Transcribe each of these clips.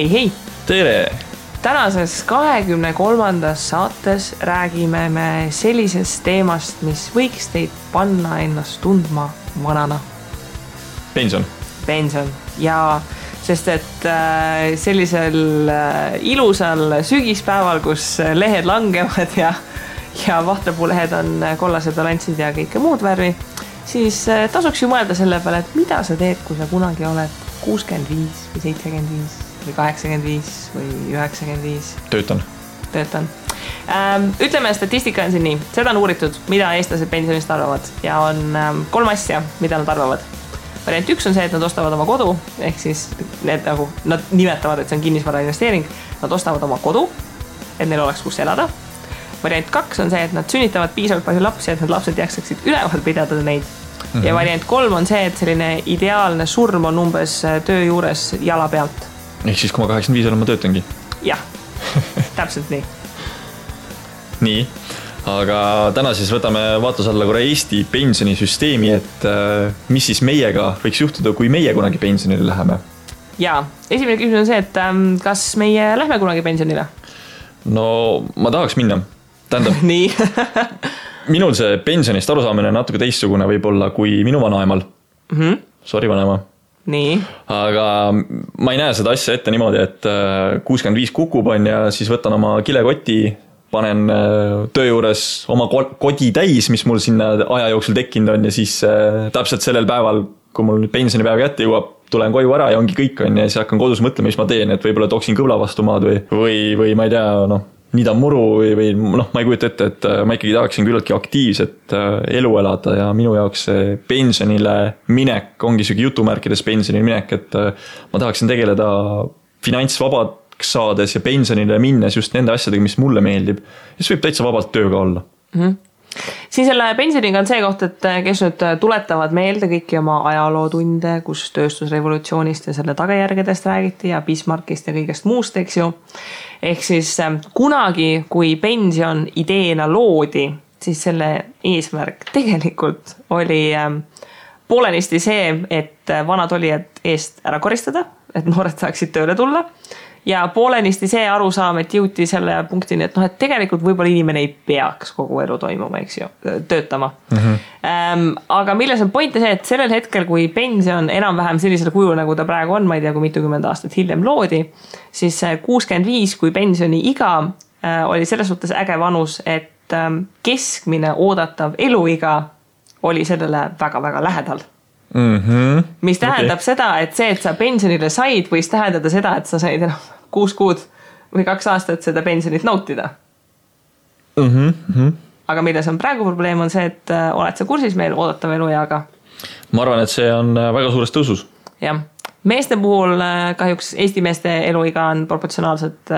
hei! Tere! Tänases 23. saates räägime me sellisest teemast, mis võiks teid panna ennast tundma vanana. Pension. Ja sest et sellisel ilusal sügispäeval, kus lehed langevad ja vahtepuulehed on kollased balanssid ja kõike muud värvi, siis tasuks ju mõelda selle peale, et mida sa teed, kui sa kunagi oled 65 või 75 või 85 või 95. Töötan. Ütleme, statistika on siin nii. Seda on uuritud, mida eestlased pensionist arvavad. Ja on 3 asja, mida nad arvavad. Variant 1 on see, et nad ostavad oma kodu. Ehk siis nad nimetavad, et see on kinnisvara investeering. Nad ostavad oma kodu, et neil oleks kus elada. Variant 2 on see, et nad sünnitavad piisavalt palju lapsi, et need lapsed jaksaksid üleval pidada neid. Ja variant 3 on see, et selline ideaalne surm on umbes töö juures jala pealt. Ehk siis, kui ma 85 olen, ma töötangi. Jah, täpselt nii. Nii, aga täna siis võtame vaatluse alla korra Eesti pensionisüsteemi, et mis siis meiega võiks juhtuda, kui meie kunagi pensionile läheme? Jaa, esimene küsimus on see, et kas meie lähme kunagi pensionile? No, ma tahaks minna. Tähendab, nii. minul see pensionist arusaamine on natuke teistsugune võib-olla kui minu vanaemal. Sorry, vanaema. Nii. Aga ma ei näe seda asja ette niimoodi, et 65 kukub on ja siis võtan oma kilekoti, panen töö juures oma kodi täis, mis mul sinna aja jooksul tekkinud on ja siis täpselt sellel päeval, kui mul pensionipäev kätte jõuab, tulen koju ära ja ongi kõik on ja siis hakkan kodus mõtlema, mis ma teen, et võib-olla tooksin kõvla vastu maad või ma ei tea, niidan muru või ma ei kujuta ette, et ma ikkagi tahaksin küllaltki aktiivset elu elada ja minu jaoks see pensionile minek ongi sügi jutumärkides pensionile minek, et ma tahaksin tegeleda finantsvabaks saades ja pensionile minnes just nende asjadega, mis mulle meeldib. Ja siis võib täitsa vabalt tööga olla. Siin selle pensioniga on see koht, et kes nüüd tuletavad meelde kõiki oma ajalootunde, kus tööstusrevolutsioonist ja selle tagajärgedest räägiti ja Bismarckist ja kõigest muust, eks ju. Ehk siis kunagi, kui pension ideena loodi, siis selle eesmärk tegelikult oli poolenisti see, et vanad olijad eest ära koristada, et noored saaksid tööle tulla. Ja poolenisti see arusaam, et jõuti selle punktini, et et tegelikult võib-olla inimene ei peaks kogu elu toimuma, eks ju, töötama. Aga milles on point see, et sellel hetkel, kui pension enam-vähem sellisel kujul, nagu ta praegu on, ma ei tea, kui mitukümmend aastat hiljem loodi, siis 65, kui pensioni iga oli selles suhtes äge vanus, et keskmine oodatav eluiga oli sellele väga-väga lähedal. Mis tähendab seda, et see, et sa pensionile said, võis tähendada seda, et sa said 6 kuud või 2 aastat seda pensionit nautida. Aga milles on praegu probleem on see, et oled sa kursis meil oodatav elueaga? Ma arvan, et see on väga suures tõusus. Jah. Meeste puhul kahjuks Eesti meeste eluiga on proportsionaalselt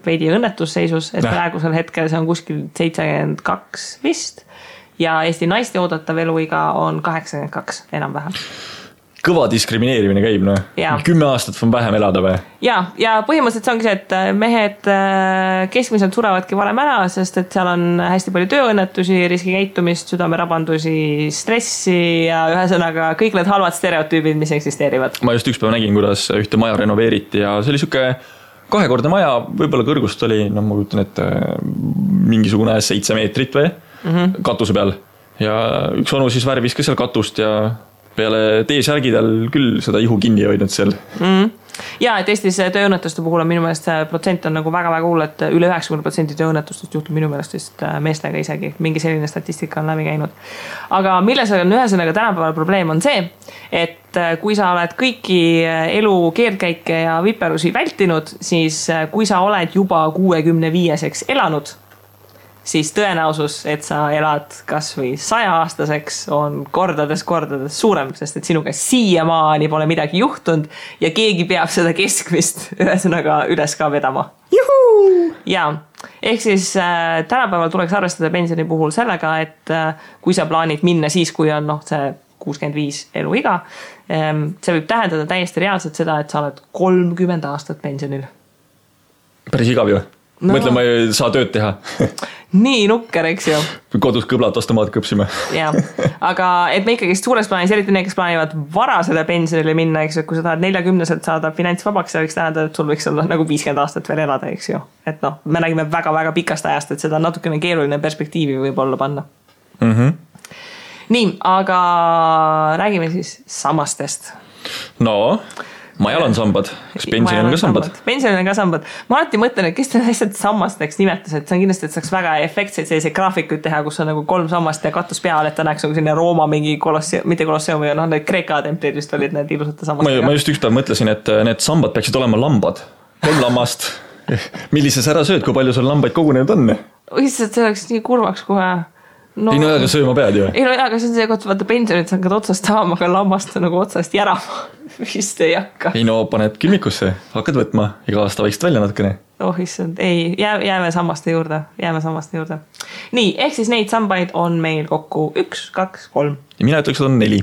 veidi õnnetusseisus, et praegusel hetkel see on kuskil 72 vist. Ja Eesti naiste oodatav eluiga on 82 enam-vähem. Kõva diskrimineerimine käib, 10 aastat on vähem elada või? Ja põhimõtteliselt see ongi see, et mehed keskmiselt suravadki varem ära, sest et seal on hästi palju tööõnnetusi, riskikäitumist, südamerabandusi, stressi ja ühesõnaga kõik need halvad stereotüübid, mis eksisteerivad. Ma just üks päev nägin, kuidas ühte maja renoveeriti ja see oli siuke 2-kordne maja, võib-olla kõrgust oli, ma kujutan, et mingisugune 7 meetrit või katuse peal. Ja üks onu siis värvis ka seal katust ja peale T-särgidel küll seda ihu kinni hoidnud seal. Ja, et Eestis tööõnnetuste puhul on minu meelest see protsent on nagu väga-väga hull, et üle 90% tööõnnetustest juhtub minu meelest vist meestega isegi. Mingi selline statistika on läbi käinud. Aga milles on ühesõnaga tänapäeval probleem on see, et kui sa oled kõiki elu keerdkäike ja viperusi vältinud, siis kui sa oled juba 65-seks elanud, siis tõenäosus, et sa elad kas või 100-aastaseks on kordades suurem, sest et sinuga siiamaani pole midagi juhtunud ja keegi peab seda keskmist ühesõnaga üles ka vedama. Juhu! Ja, ehk siis tänapäeval tuleks arvestada pensioni puhul sellega, et kui sa plaanid minna siis, kui on see 65 eluiga, see võib tähendada täiesti reaalselt seda, et sa oled 30 aastat pensionil. Päris igav ju. Mõtle, ma ei saa tööd teha. nii nukker, eks ju. Kodus kõblad ostomaat kõpsime. Ja, aga et me ikkagi suures plaanis, eriti need, kes plaanivad varasele pensionile minna, eks ju, kui sa tahad 40-selt saada finantsvabaks, see võiks tähendada, et sul võiks olla nagu 50 aastat veel elada, eks ju. Et noh, me nägime väga-väga pikast ajast, et seda natukene keeruline perspektiivi võib olla panna. Nii, aga räägime siis sammastest. No, majal on sambad. Kas pensionil on ka sambad? Pensionil on ka sambad. Ma alati mõtlen, et kes te lihtsalt sammasteks nimetas, et see on kindlasti, et saaks väga efektseid selliseid graafikuid teha, kus on nagu 3 sammast ja katus peal, et ta näeks nagu selline Rooma mingi mitte kolosseumi, noh, need Kreeka templid vist olid need ilusate sammastega. Ma just üks päev mõtlesin, et need sambad peaksid olema lambad. 3 lammast. Millises ära sööd, kui palju sul lambaid kogunenud on? Lihtsalt see oleks nii kurvaks kohe. No, ei no aga sööma pead ju. Ei no aga see on see koht, vaata pensionit sa hakkad otsast saama, aga lammast nagu otsast järama. Vist ei hakka. Ei no paned külmikusse, hakkad võtma, iga aasta vaikselt välja natukene. Oh issand, ei, jääme sammaste juurde. Nii, ehk siis neid sambaid on meil kokku 1, 2, 3. Ja mina ütleks, et on 4.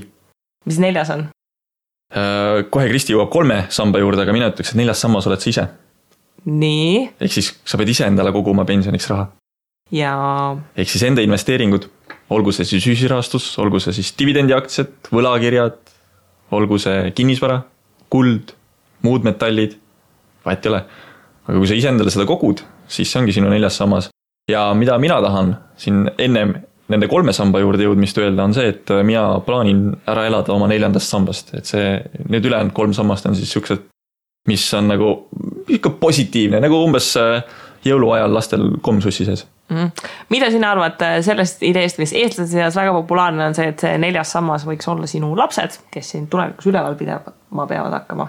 Mis 4 on? Kohe Kristi jõuab 3 samba juurde, aga mina ütleks, et 4 sammas oled sa ise. Nii. Ehk siis sa pead ise endale koguma pensioniks raha. Ja ehk siis enda investeeringud, olgu see siis ühisrahastus, olgu see siis dividendiaktsiad, võlakirjad, olgu see kinnisvara, kuld, muud metallid, vahet ei ole. Aga kui sa ise endale seda kogud, siis see ongi sinu 4. sammas. Ja mida mina tahan siin ennem nende 3 samba juurde jõudmist öelda on see, et mina plaanin ära elada oma 4. sambast. Et see, need ülejäänud 3 sammast on siis siuksed, mis on nagu ikka positiivne, nagu umbes jõuluajal lastel komsussi sees. Mida sina arvad sellest ideest, mis eestlaste seas väga populaarne on see, et see 4. sammas võiks olla sinu lapsed, kes siin tulevikus üleval peavad hakkama?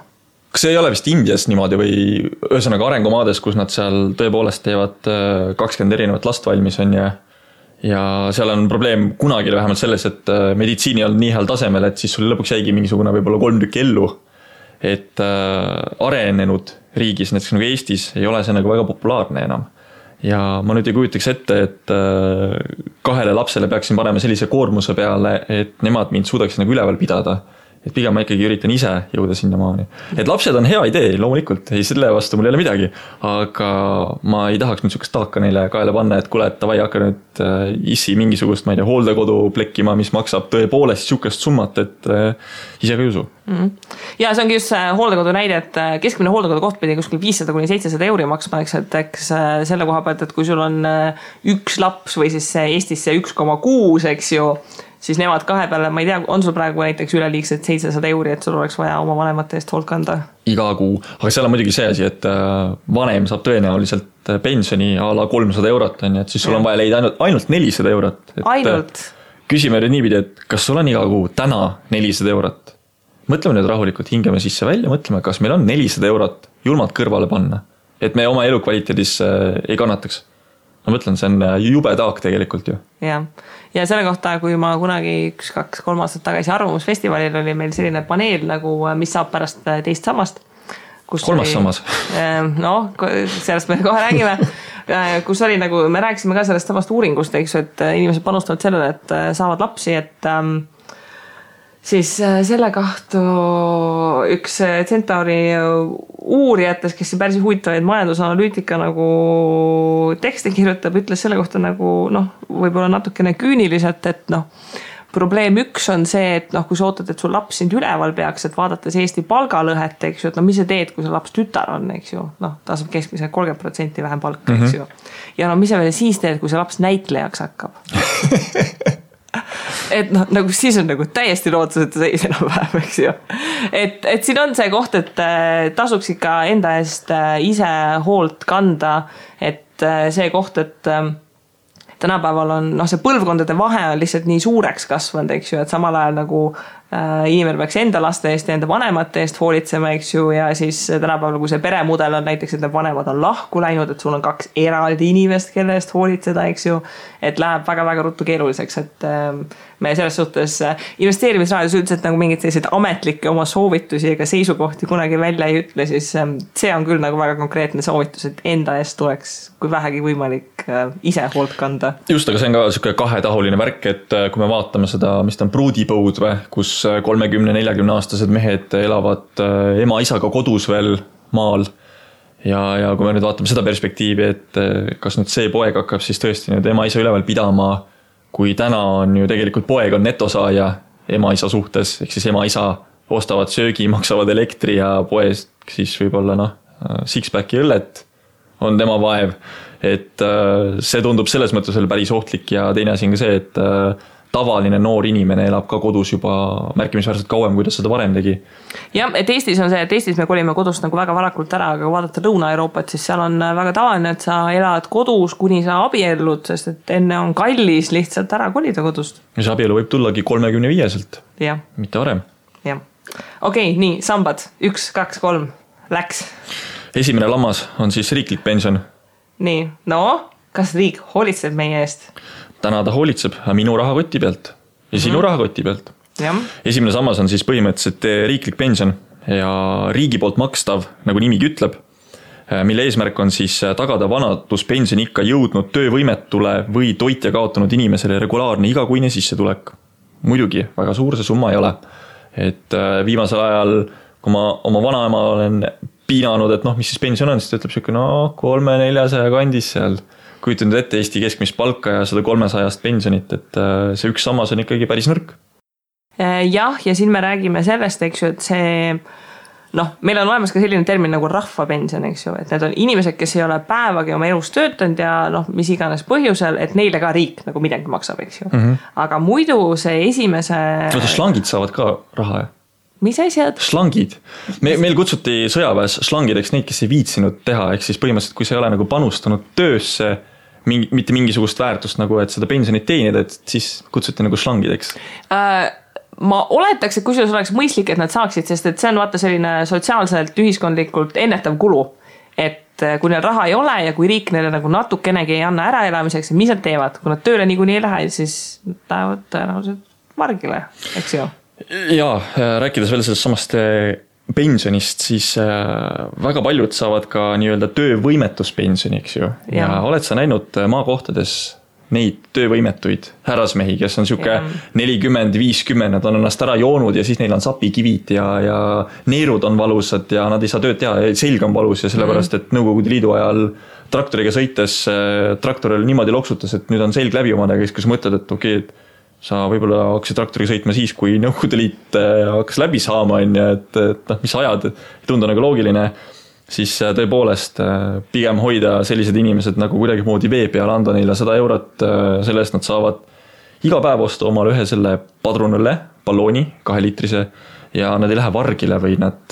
Kas see ei ole vist Indias niimoodi või ühesõnaga arengumaades, kus nad seal tõepoolest teevad 20 erinevat last valmis on ja seal on probleem kunagi vähemalt selles, et meditsiini on nii heal tasemel, et siis sul lõpuks jäigi mingisugune võib-olla 3 tükki ellu. Et arenenud riigis, näiteks nagu Eestis, ei ole see nagu väga populaarne enam. Ja ma nüüd ei kujutaks ette, et 2 lapsele peaksin panema sellise koormuse peale, et nemad mind suudaks nagu üleval pidada. Et pigem ma ikkagi üritan ise jõuda sinna maani. Et lapsed on hea idee, loomulikult, ei selle vastu mul ei ole midagi, aga ma ei tahaks nüüd sukast taaka neile kaela panna, et kuule, et tavai hakka nüüd issi mingisugust, ma ei tea, hooldekodu plekkima, mis maksab tõepoolest sukast summat, et ise ka ei usu. Ja see ongi just see hooldekodu näide, et keskmine hooldekodu koht pidi kuskil 500–700 euri maksma, eks selle koha pealt, et kui sul on 1 laps või siis Eestis see 1,6, eks ju, siis nemad 2 peale, ma ei tea, on sul praegu näiteks üleliigsed 700 euri, et sul oleks vaja oma vanemate eest hoolt kanda? Iga kuu, aga seal on muidugi see asi, et vanem saab tõenäoliselt pensioni a la 300 eurot, et siis sul on vaja leida ainult 400 eurot. Ainult? Küsime nüüd niipidi, et kas sul on iga kuu täna 400 eurot? Mõtleme nüüd rahulikult, hingame sisse välja, mõtleme, kas meil on 400 eurot julmalt kõrvale panna, et me oma elukvaliteedis ei kannataks. Ma mõtlen, see on jube taak tegelikult ju. Ja selle kohta, kui ma kunagi 1-2-3 aastat tagasi Arvamusfestivalil oli meil selline paneel, nagu mis saab pärast 2. sammast. 3. sammas. No, sellest me kohe räägime. Kus oli nagu, me rääkisime ka sellest samast uuringust, eks, et inimesed panustavad sellele, et saavad lapsi, et siis selle kahtu üks Centauri uurijates, kes päris huvitavaid majandusanalüütika nagu tekste kirjutab, ütles selle kohta nagu, võib-olla natukene küüniliselt, et probleem 1 on see, et kui sa ootad, et sul laps sind üleval peaks, et vaadates Eesti palgalõhet, eks ju, et mis sa teed, kui see laps tütar on, eks ju, ta saab keskmise 30% vähem palka, eks ju. Ja mis sa veel siis teed, kui see laps näitlejaks hakkab? Et nagu siis on nagu täiesti lootuseta seis enam vähem, eks ju. Et siin on see koht, et tasuks ikka enda eest ise hoolt kanda, et see koht, et tänapäeval on, see põlvkondade vahe on lihtsalt nii suureks kasvanud, eks ju, et samal ajal nagu inimene peaks enda laste eest ja enda vanemate eest hoolitsema, eks ju, ja siis tänapäeval, kui see peremudel on näiteks, et vanemad on lahku läinud, et sul on 2 eraldi inimest, kelle eest hoolitseda, eks ju, et läheb väga-väga ruttu keeruliseks, et me selles suhtes investeerimisraadios üldiselt nagu mingid sellised ametlikke oma soovitusi ega seisukohti kunagi välja ei ütle, siis see on küll nagu väga konkreetne soovitus, et enda eest tuleks, kui vähegi võimalik, ise hoolt kanda. Just, aga see on ka selline 2-tahuline värk, et kui me vaatame seda, mis ta on pruudipõud või, kus 30-40 aastased mehed elavad ema-isaga kodus veel maal ja kui me nüüd vaatame seda perspektiivi, et kas nüüd see poeg hakkab siis tõesti nüüd ema-isa üleval pidama, kui täna on ju tegelikult poeg on netosaaja ema-isa suhtes, ehk siis ema-isa ostavad söögi, maksavad elektri ja poest siis võib-olla six-packi õllet on tema vaev, et see tundub selles mõttes veel päris ohtlik ja teine asi on ka see, et tavaline noor inimene elab ka kodus juba märkimisväärselt kauem, kui ta seda varem tegi. Jah, et Eestis on see, et Eestis me kolime kodust nagu väga varakult ära, aga kui vaadata Lõuna-Euroopat, siis seal on väga tavaline, et sa elad kodus, kuni sa abiellud, sest et enne on kallis lihtsalt ära kolida kodust. Ja see abielu võib tullagi 35-selt, mitte varem. Jah. Okei, nii, sambad, 1, 2, 3, läks. Esimene lammas on siis riiklik pension. Nii, no, kas riik hoolitseb meie eest? Täna ta hoolitseb minu rahakoti pealt ja sinu rahakoti pealt. Ja. Esimene sammas on siis põhimõtteliselt riiklik pension ja riigi poolt makstav, nagu nimigi ütleb, mille eesmärk on siis tagada vanaduspensioni ikka jõudnud töövõimetule või toitja kaotanud inimesele regulaarne igakuine sissetulek. Muidugi, väga suur see summa ei ole. Et viimasel ajal, kui ma oma vanaema olen piinanud, et mis siis pension on, siis ta ütleb siuke 300-400 kandis seal. Kujutanud ette Eesti keskmist palka ja 100-300 pensionit, et see üks sammas on ikkagi päris nõrk. Jah, ja siin me räägime sellest, eks ju, et see, meil on olemas ka selline termin nagu rahvapension, eks ju, et need on inimesed, kes ei ole päevagi oma elus töötanud ja mis iganes põhjusel, et neile ka riik nagu midagi maksab, eks ju. Aga muidu see esimese... Slangid saavad ka raha, jah? Mis asjad? Slangid. Meil kutsuti sõjaväes slangideks neid, kes ei viitsinud teha, ehk siis põhimõtteliselt, kui sa ei ole nagu panustanud töösse, mitte mingisugust väärtust nagu, et seda pensionit teenida, et siis kutsuti nagu slangideks. Ma oletaks, et kusjuures oleks mõistlik, et nad saaksid, sest et see on vaata selline sotsiaalselt, ühiskondlikult ennetav kulu. Et kui neil raha ei ole ja kui riik neile nagu natukenegi ei anna äraelamiseks, mis nad teevad? Kui nad tööle niikuinii ei lähe, siis lähevad tõenäoliselt margile, eks ju? Jaa, rääkides veel sellest samast pensionist, siis väga paljud saavad ka nii-öelda töövõimetuspensioni, eks ju. Ja oled sa näinud maakohtades neid töövõimetuid härrasmehi, kes on siuke 40-50, nad on ennast ära joonud ja siis neil on sapikivid ja neerud on valusad ja nad ei saa tööd teha, selg on valus ja sellepärast, et Nõukogude Liidu ajal traktoriga sõites traktoril niimoodi loksutas, et nüüd on selg läbi omadega, kus mõtled, et okei, et sa võib-olla hakkasid traktoriga sõitma siis, kui Nõukogude Liit hakkas läbi saama, et mis ajad, ei tundu nagu loogiline, siis tõepoolest pigem hoida sellised inimesed nagu kuidagi moodi vee peal, anda neile 100 eurot, selle eest nad saavad iga päev osta omale ühe selle padrunõlle, ballooni, 2-liitrise ja nad ei lähe vargile või nad,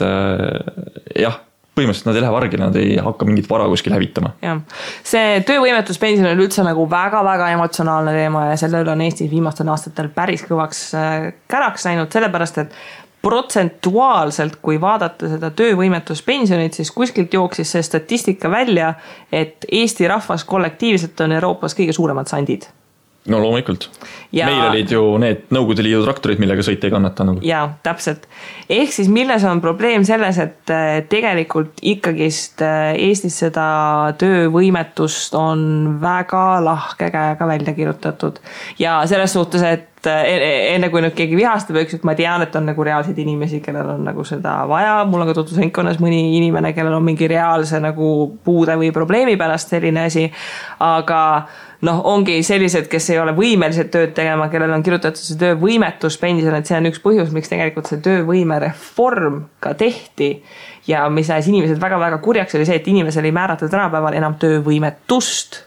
põhimõtteliselt nad ei lähe vargile, nad ei hakka mingit vara kuskil hävitama. Ja. See töövõimetuspension on üldse nagu väga-väga emotsionaalne teema ja selle üle on Eestis viimastel aastatel päris kõvaks käraks läinud, sellepärast, et protsentuaalselt, kui vaadata seda töövõimetuspensionit, siis kuskilt jooksis see statistika välja, et Eesti rahvas kollektiivselt on Euroopas kõige suuremad sandid. No loomulikult. Meil olid ju need Nõukogude Liidu traktorid, millega sõita ei kannata. Nagu. Jaa, täpselt. Ehk siis milles on probleem selles, et tegelikult ikkagist Eestis seda töövõimetust on väga lahke käega välja kirjutatud. Ja selles suhtes, et enne kui nüüd keegi vihastab, et ma tean, et on nagu reaalseid inimesi, kellel on nagu seda vaja. Mul on ka tutvusringkonnas mõni inimene, kellel on mingi reaalse nagu puude või probleemi pärast selline asi. Aga ongi sellised, kes ei ole võimelised tööd tegema, kellel on kirjutatud see töövõimetuspension, et see on üks põhjus, miks tegelikult see töövõimereform ka tehti. Ja mis näis inimesed väga-väga kurjaks oli see, et inimesel ei määrata tänapäeval enam töövõimetust,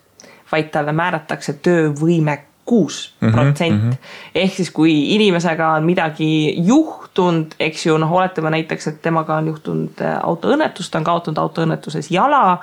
vaid talle määratakse töövõime 6%. Ehk siis kui inimesega on midagi juhtunud, eks ju, oletame näiteks, et temaga on juhtunud autoõnnetus, ta on kaotanud autoõnnetuses jala,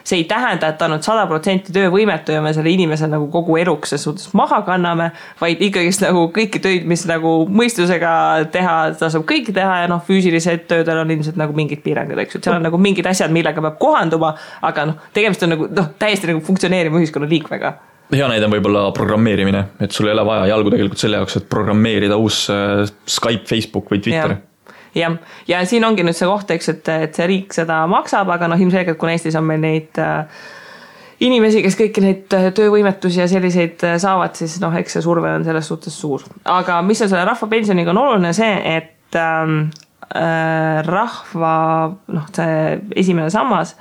see ei tähenda, et ta on 100% töövõimetu ja me selle inimese nagu kogu eluks suhtes maha kanname, vaid ikkagist nagu kõiki töid, mis nagu mõistusega teha, ta saab kõiki teha ja füüsilised töödel on ilmselt nagu mingid piirangud, eks ju, seal on nagu mingid asjad, millega peab kohanduma, aga tegemist on nagu täiesti nagu funktsioneerima ühiskonna liikmega. Hea näide on võib-olla programmeerimine, et sul ei ole vaja jalgu tegelikult selle jaoks, et programmeerida uus Skype, Facebook või Twitter. Ja siin ongi nüüd see koht, eks, et see riik seda maksab, aga ilmselgelt, kui Eestis on meil neid inimesi, kes kõiki neid töövõimetusi ja selliseid saavad, siis eks see surve on selles suhtes suur. Aga mis on selle rahvapensioniga on oluline see, et rahva, see esimene sammas,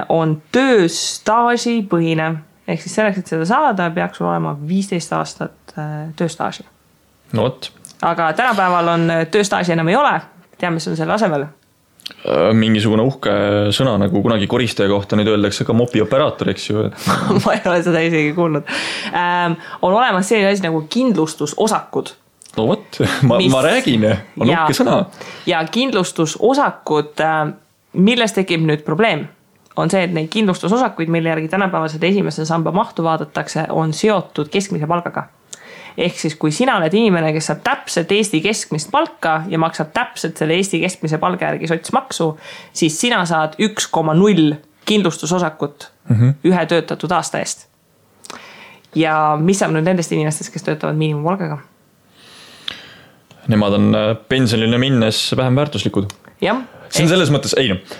on tööstaaži põhine. Ehk siis selleks, et seda saada, peaks sul olema 15 aastat tööstaaži. No võt. Aga tänapäeval on tööstaaži enam ei ole. Teame, mis on selle asemel? Mingisugune uhke sõna, nagu kunagi koristaja kohta nüüd öeldakse ka mopi operaator, eks ju. Ma ei ole seda isegi kuulnud. On olemas selline asi nagu kindlustusosakud. No võt, ma räägin, on uhke sõna. Ja kindlustusosakud, milles tekib nüüd probleem, on see, et neid kindlustusosakuid, mille järgi tänapäevased esimese samba mahtu vaadatakse, on seotud keskmise palgaga. Ehk siis, kui sina oled inimene, kes saab täpselt Eesti keskmist palka ja maksab täpselt selle Eesti keskmise palga järgi sotsmaksu, siis sina saad 1,0 kindlustusosakut ühe töötatud aasta eest. Ja mis saab nüüd nendest inimestest, kes töötavad miinimumpalgaga? Nemad on pensionile minnes vähem väärtuslikud. Jah. See on selles mõttes,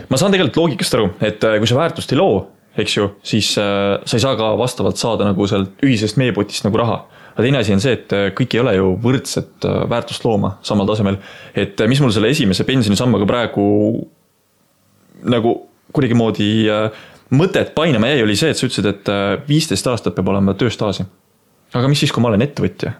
ma saan tegelikult loogikast aru, et kui sa väärtust ei loo, eks ju, siis sa ei saa ka vastavalt saada nagu sealt ühisest meepotist nagu raha. Aga teine asi on see, et kõik ei ole ju võrdset väärtust looma samal tasemel. Et mis mul selle esimese pensionisambaga praegu nagu kuidagi moodi mõtet painama jäi, oli see, et sa ütlesid, et 15 aastat peab olema tööstaaži. Aga mis siis, kui ma olen ettevõtja?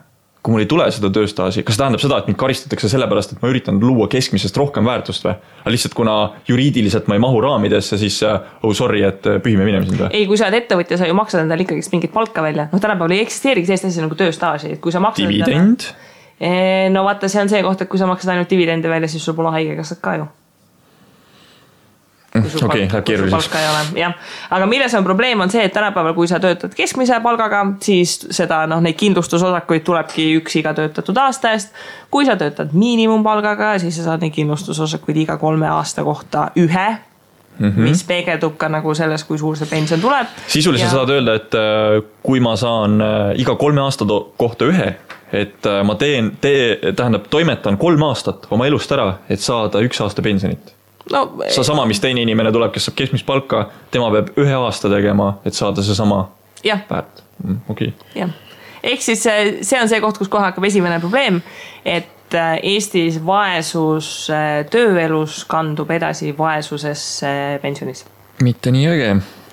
Kui mul ei tule seda tööstaaži, kas tähendab seda, et mind karistatakse sellepärast, et ma üritan luua keskmisest rohkem väärtust või? Aga lihtsalt kuna juriidiliselt ma ei mahu raamidesse, siis sorry, et pühime minema sind või? Ei, kui sa oled ettevõtja, sa ju maksad endale ikkagi mingit palka välja. No tänapäeval ei eksisteerigi sellist asja nagu tööstaaži. Kui sa maksad dividend? No vaata, see on see koht, et kui sa maksad ainult dividende välja, siis sul pole haigekassat ka ju. Okei, läheb keeruliseks. Aga milles on probleem on see, et tänapäeval, kui sa töötad keskmise palgaga, siis seda, neid kindlustusosakuid tulebki üks iga töötatud aasta eest. Kui sa töötad miinimumpalgaga, siis sa saad neid kindlustusosakuid iga 3 aasta kohta ühe, mis peegeldub ka nagu selles, kui suur see pension tuleb. Sisuliselt saad öelda, et kui ma saan iga 3 aasta kohta ühe, et ma tähendab, toimetan 3 aastat oma elust ära, et saada 1 aasta pensionit. No, sa sama, mis teine inimene tuleb, kes saab keskmist palka, tema peab 1 aasta tegema, et saada see sama väärt. Okay. Ehk siis see on see koht, kus kohe hakkab esimene probleem, et Eestis vaesus tööelus kandub edasi vaesusesse pensionis. Mitte nii õige.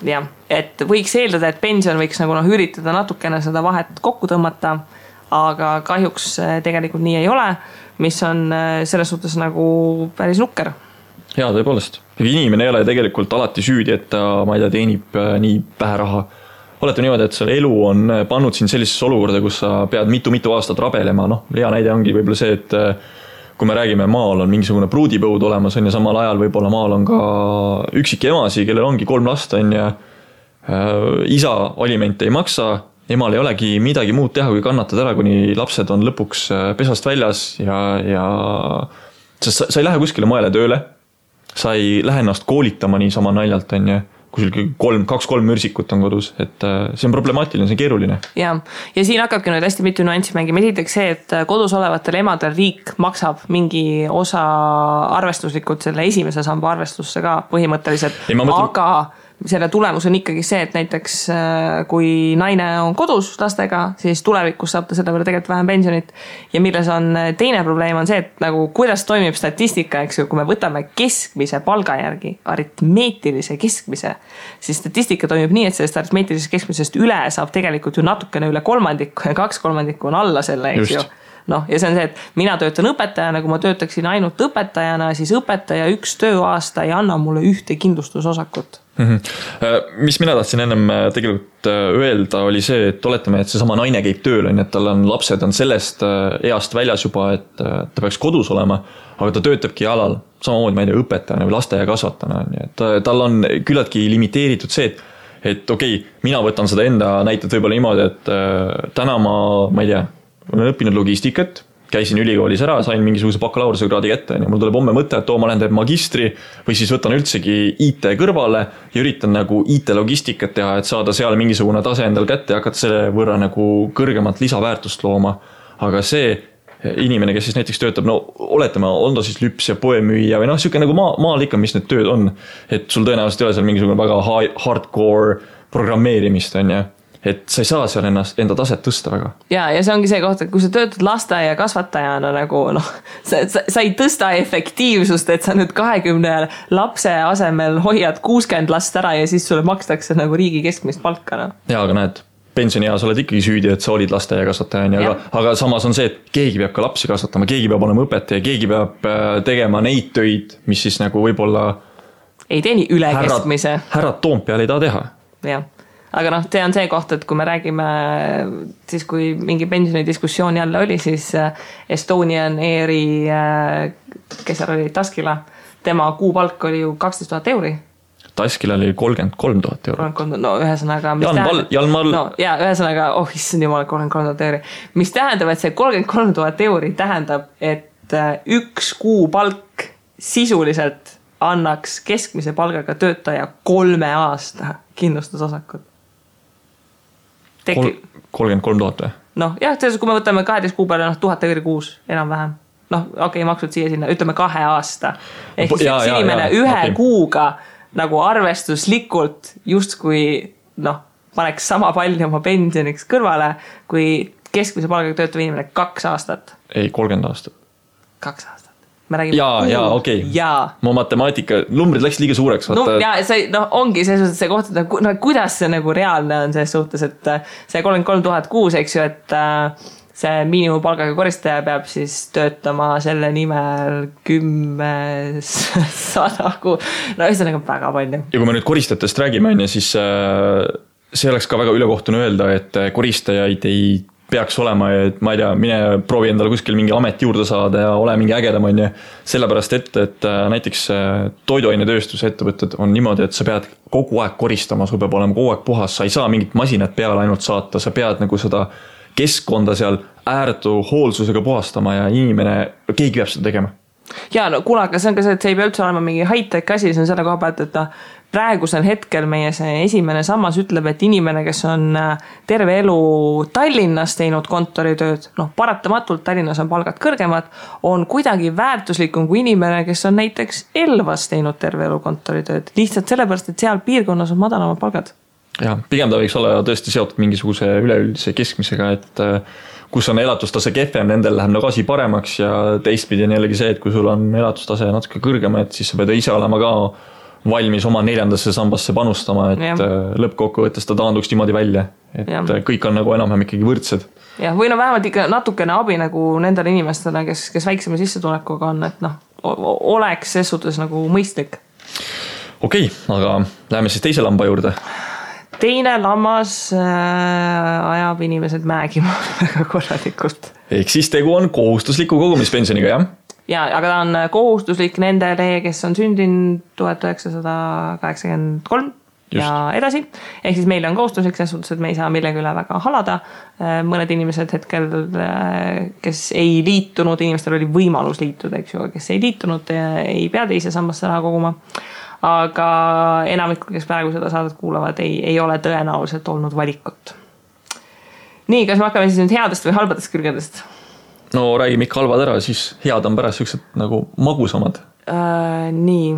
Jah, et võiks eeldada, et pension võiks nagu üritada natukene seda vahet kokku tõmmata, aga kahjuks tegelikult nii ei ole, mis on selles suhtes nagu päris nukker. Jaa, tõepoolest. Inimene ei ole tegelikult alati süüdi, et ta, ma ei tea, teenib nii vähe raha. Olete niimoodi, et selle elu on pannud siin sellisesse olukorda, kus sa pead mitu aastat rabelema. Hea näide ongi võib-olla see, et kui me räägime, maal on mingisugune pruudipõud olemas, ja samal ajal võib-olla maal on ka üksik emasi, kellel ongi 3 last, ja isa alimente ei maksa, emal ei olegi midagi muud teha, kui kannatada ära, kuni lapsed on lõpuks pesast väljas ja sa ei lähe kuskile moele tööle. Sa ei lähe ennast koolitama nii sama naljalt, kui sul 2-3 mürsikut on kodus, et see on problemaatiline, see on keeruline. Ja siin hakkabki nüüd hästi mitu nüanssi mängima. Esiteks see, et kodus olevatel emadel riik maksab mingi osa arvestuslikult selle esimese samba arvestusse ka põhimõtteliselt, aga selle tulemus on ikkagi see, et näiteks kui naine on kodus lastega, siis tulevikus saab ta selle peale tegelikult vähem pensionit. Ja milles on teine probleem on see, et nagu kuidas toimib statistika, eks ju, kui me võtame keskmise palga järgi, aritmeetilise keskmise, siis statistika toimib nii, et sellest aritmeetilisest keskmisest üle saab tegelikult ju natukene üle 1/3 ja 2/3 on alla selle, eks ju. Ja see on see, et mina töötan õpetajana, kui ma töötaksin ainult õpetajana, siis õpetaja 1 tööaasta ei anna mulle ühte kindlustusosakut. Mis mina tahtsin ennem tegelikult öelda oli see, et oletame, et see sama naine käib tööl, et tal on lapsed on sellest east väljas juba, et ta peaks kodus olema, aga ta töötabki alal, samamoodi ma ei tea, õpetajana või lasteaia kasvatana, et tal on küllaltki limiteeritud see, et okei, mina võtan seda enda näited võib-olla niimoodi, et täna ma ei tea, olen õppinud logistikat, käisin ülikoolis ära, sain mingisuguse bakalaureuse kraadi kätte ja mul tuleb homme mõte, et ma lähen teeb magistri või siis võtan üldsegi IT kõrvale ja üritan nagu IT-logistikat teha, et saada seal mingisugune tase endal kätte ja hakata selle võrra nagu kõrgemat lisaväärtust looma. Aga see inimene, kes siis näiteks töötab, oletame, on ta siis lüps ja poemüüja või siuke nagu maal ikka, mis need tööd on, et sul tõenäoliselt ei ole seal mingisugune väga hardcore programmeerimist, on ja et sa ei saa seal enda taset tõsta väga. Ja see ongi see koht, et kui sa töötad lasteaia kasvatajana nagu sa ei tõsta efektiivsust, et sa nüüd 20 lapse asemel hoiad 60 last ära ja siis sulle makstakse nagu riigi keskmist palka. Ja, aga näed, pensionieas oled ikkagi süüdi, et sa olid lasteaia kasvataja, aga samas on see, et keegi peab ka lapsi kasvatama, keegi peab olema õpetaja, keegi peab tegema neid töid, mis siis nagu võib-olla ei teeni üle keskmise. Härrad Toompeal ei taha teha. Jah. Aga see on see koht, et kui me räägime siis, kui mingi pensionidiskussioon jälle oli, siis Estonian Airi, kes seal oli, Taskila, tema kuupalk oli ju 12 000 euri. Taskila oli 33 000 euro. No ühesõnaga... Jalmal... No, ja ühesõnaga, issand jumal, 33 000 euri. Mis tähendab, et see 33 000 euri tähendab, et üks kuupalk sisuliselt annaks keskmise palgaga töötaja 3 aasta kindlustusosakut. 33 000 või? Noh, jah, kui me võtame 12 kuu peale 1000 euri kuus, enam vähem. Maksud siia sinna, ütleme 2 aasta. Ehk siis üks inimene ühe kuuga nagu arvestuslikult justkui paneks sama palju oma pensioniks kõrvale, kui keskmise palgaga töötav inimene 2 aastat. Ei, 30 aastat. 2 aastat. Okei. Mu matemaatika, numbrid läks liiga suureks. Ongi see koht, et kuidas see nagu reaalne on selles suhtes, et see 33 000 kuus, eks ju, et see miinimumpalgaga koristaja peab siis töötama selle nimel 10 100 kuu. Ühesõnaga väga palju. Ja kui me nüüd koristajatest räägime, siis see oleks ka väga ülekohtune öelda, et koristajaid ei peaks olema, et ma ei tea, mine proovi endale kuskil mingi amet juurde saada ja ole mingi ägedam, sellepärast et näiteks toiduainetööstuse ettevõtted on niimoodi, et sa pead kogu aeg koristama, sul peab olema kogu aeg puhas, sa ei saa mingit masinat peale ainult saata, sa pead nagu seda keskkonda seal ääretu hoolsusega puhastama ja keegi peab seda tegema. Ja kuule, aga see on ka see, et see ei pea üldse olema mingi high-tech asi, see on selle koha pealt, et praegusel hetkel meie see esimene sammas ütleb, et inimene, kes on terve elu Tallinnas teinud kontoritööd, paratamatult Tallinnas on palgad kõrgemad, on kuidagi väärtuslikum kui inimene, kes on näiteks Elvas teinud terve elu kontoritööd. Lihtsalt sellepärast, et seal piirkonnas on madalamad palgad. Ja, pigem ta võiks olla tõesti seotud mingisuguse üleüldise keskmisega, et kus on elatustase kehvem, nendel läheb nagu asi paremaks ja teistpidi on jällegi see, et kui sul on elatustase natuke kõrgem, et siis sa pead ise olema ka valmis oma 4. sambasse panustama, et lõppkokkuvõttes ta taanduks niimoodi välja, et kõik on nagu enam-vähem ikkagi võrdsed. Ja, või vähemalt ikka natukene abi nagu nendele inimestele, kes väiksema sissetulekuga on, et oleks ses suhtes nagu mõistlik. Okei, aga läheme siis teise lamba juurde. Teine lammas ajab inimesed mägima väga korralikult. Ehk siis tegu on kohustusliku kogumispensioniga, jah? Ja, aga ta on kohustuslik nendele, kes on sündinud 1983 Just. Ja edasi. Ehk siis meil on kohustuslik selles suhtes, et me ei saa millegi üle väga halada. Mõned inimesed hetkel, kes ei liitunud, inimestel oli võimalus liituda, eks ju, kes ei liitunud, ei pea teise sambasse raha koguma. Aga enamikul, kes praegu seda saadet kuulavad, ei ole tõenäoliselt olnud valikut. Nii, kas me hakkame siis nüüd headest või halbadest külgedest? No räägime ikka halvad ära, siis head on pärast sellised nagu magusamad. Nii,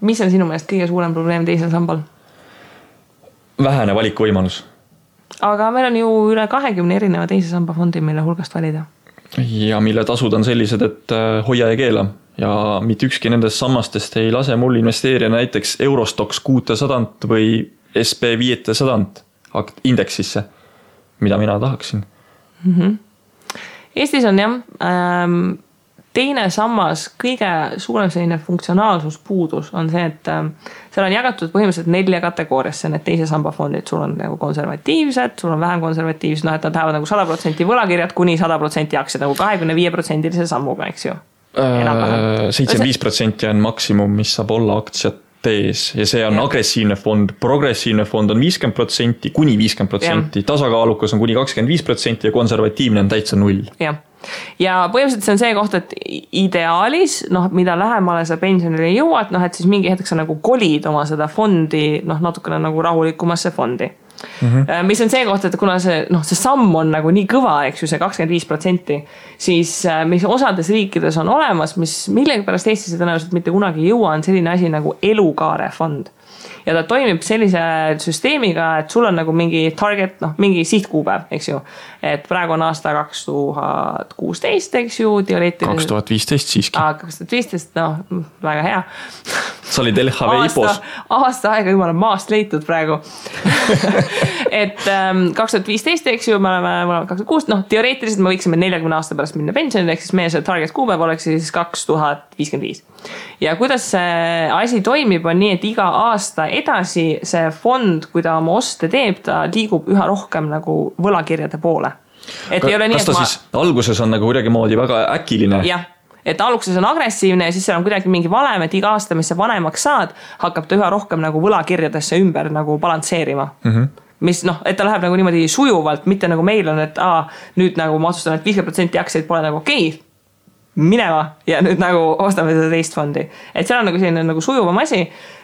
mis on sinu meelest kõige suurem probleem teisel sambal? Vähene valikuvõimalus. Aga meil on ju üle 20 erineva teise samba fondi, mille hulgast valida. Ja mille tasud on sellised, et hoia ja keela. Ja mitte ükski nendest sammastest ei lase mul investeerida näiteks Eurostox 600 või SP 500 indeksisse, mida mina tahaksin. Eestis on teine sammas, kõige suurem selline funktsionaalsuspuudus on see, et seal on jagatud põhimõtteliselt 4 kategooriasse need teise samba fondid. Sul on nagu konservatiivsed, sul on vähem konservatiivsed, et nad lähevad nagu 100% võlakirjad kuni 100% aktsiad nagu 25% sammuga, eks ju. 75% on maksimum, mis saab olla aktsiates ja see on agressiivne fond, progressiivne fond on 50%, kuni 50%, tasakaalukas on kuni 25% ja konservatiivne on täitsa 0. Ja põhimõtteliselt see on see koht, et ideaalis, mida lähemale sa pensionile jõuad, et siis mingi hetkeks sa nagu kolid oma seda fondi, natukene nagu rahulikumasse fondi. Mis on see koht, et kuna see samm on nagu nii kõva, eks ju, see 25%, siis mis osades riikides on olemas, mis millegi pärast Eestis tõenäoliselt mitte kunagi jõua, on selline asi nagu elukaare fond. ja ta toimib sellise süsteemiga, et sul on nagu mingi target, mingi sihtkuupäev, eks ju. Et praegu on aasta 2016, eks ju, teoreetiliselt. 2015 siiski. 2015, väga hea. Sa olid LHV IPOs. Aasta aega jumala maast leitud praegu. Et 2015, eks ju, me oleme 2006, teoreetiliselt me võiksime 40 aasta pärast minna pensionile, ehk siis meie see target kuupäev oleks siis 2055. Ja kuidas see asi toimib, on nii, et iga aasta edasi see fond, kui ta oma oste teeb, ta liigub üha rohkem nagu võlakirjade poole. Et ei ole nii, kas ta siis alguses on nagu kuidagi moodi väga äkiline? Jah. Et alguses on agressiivne ja siis seal on kuidagi mingi valem, et iga aasta, mis sa vanemaks saad, hakkab ta üha rohkem nagu võlakirjadesse ümber nagu balansseerima. Mis et ta läheb nagu niimoodi sujuvalt, mitte nagu meil on, et nüüd nagu ma otsustan, et 50% aktsiaid pole nagu okei, minema ja nüüd nagu ostame seda teist fondi. Et seal on nagu selline nagu sujuvam asi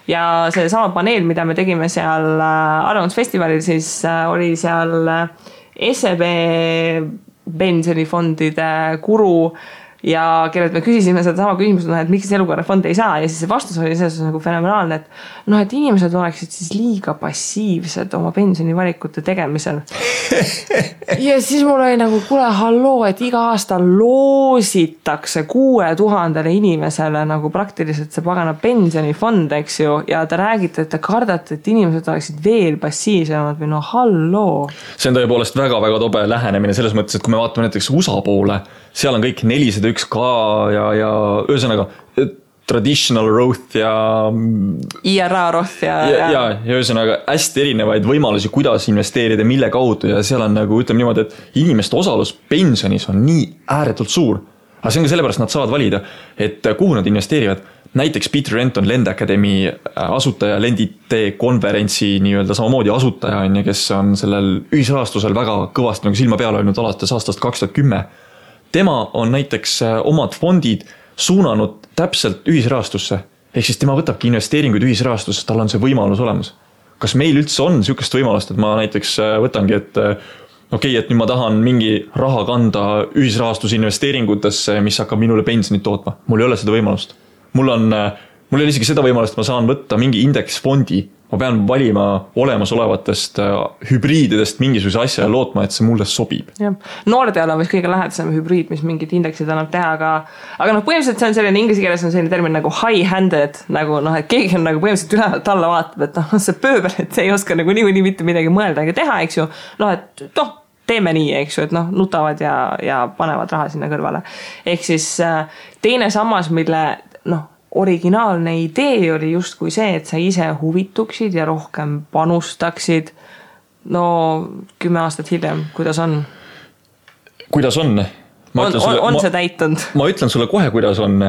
ja see sama paneel, mida me tegime seal arvamusfestivalil, siis oli seal SEB pensionifondide guru ja kellelt me küsisime seda sama küsimust, et miks elukorrafond ei saa ja siis see vastus oli selles nagu fenomenaalne, et inimesed oleksid siis liiga passiivsed oma pensionivalikute tegemisel. Ja siis mul oli nagu, kuule halloo, et iga aasta loositakse 6000 inimesele nagu praktiliselt see pagana pensionifond, eks ju, ja te räägite, et te kardate, et inimesed oleksid veel passiivsemad või halloo. See on tõepoolest väga-väga tobe lähenemine selles mõttes, et kui me vaatame näiteks USA poole, seal on kõik 401k ja ühesõnaga traditional Roth ja IRA Roth ja ühesõnaga hästi erinevaid võimalusi, kuidas investeerida, mille kaudu ja seal on nagu ütleme niimoodi, et inimeste osalus pensionis on nii ääretult suur. Aga see on ka sellepärast, nad saavad valida, et kuhu nad investeerivad. Näiteks Peter Renton, Lend Academy asutaja, Lendite konverentsi nii-öelda samamoodi asutaja, kes on sellel ühisrahastusel väga kõvasti nagu silma peale olnud alates aastast 2010. Tema on näiteks omad fondid suunanud täpselt ühisrahastusse. Ehk siis tema võtabki investeeringuid ühisrahastusse, tal on see võimalus olemas. Kas meil üldse on niisugust võimalust, et ma näiteks võtangi, et et nüüd ma tahan mingi raha kanda ühisrahastusinvesteeringutesse, mis hakkab minule pensionit tootma. Mul ei ole seda võimalust. Mul ei ole isegi seda võimalust, et ma saan võtta mingi indeksfondi. Ma pean valima olemasolevatest hübriididest mingisuguse asja ja lootma, et see mulle sobib. Noorteal on vist kõige lähedasem hübriid, mis mingid indeksid annab teha, aga põhimõtteliselt see on selline, inglise keeles on selline termin nagu high-handed, nagu et keegi on nagu põhimõtteliselt ülevalt alla vaatab, et see pööbel, et see ei oska nagu nii mitte midagi mõelda ega teha, eks ju. Teeme nii, eks ju, et nutavad ja panevad raha sinna kõrvale. Ehk siis teine sammas, mille originaalne idee oli just kui see, et sa ise huvituksid ja rohkem panustaksid. 10 aastat hiljem, kuidas on? Kuidas on? On see täitunud? Ma ütlen sulle kohe, kuidas on.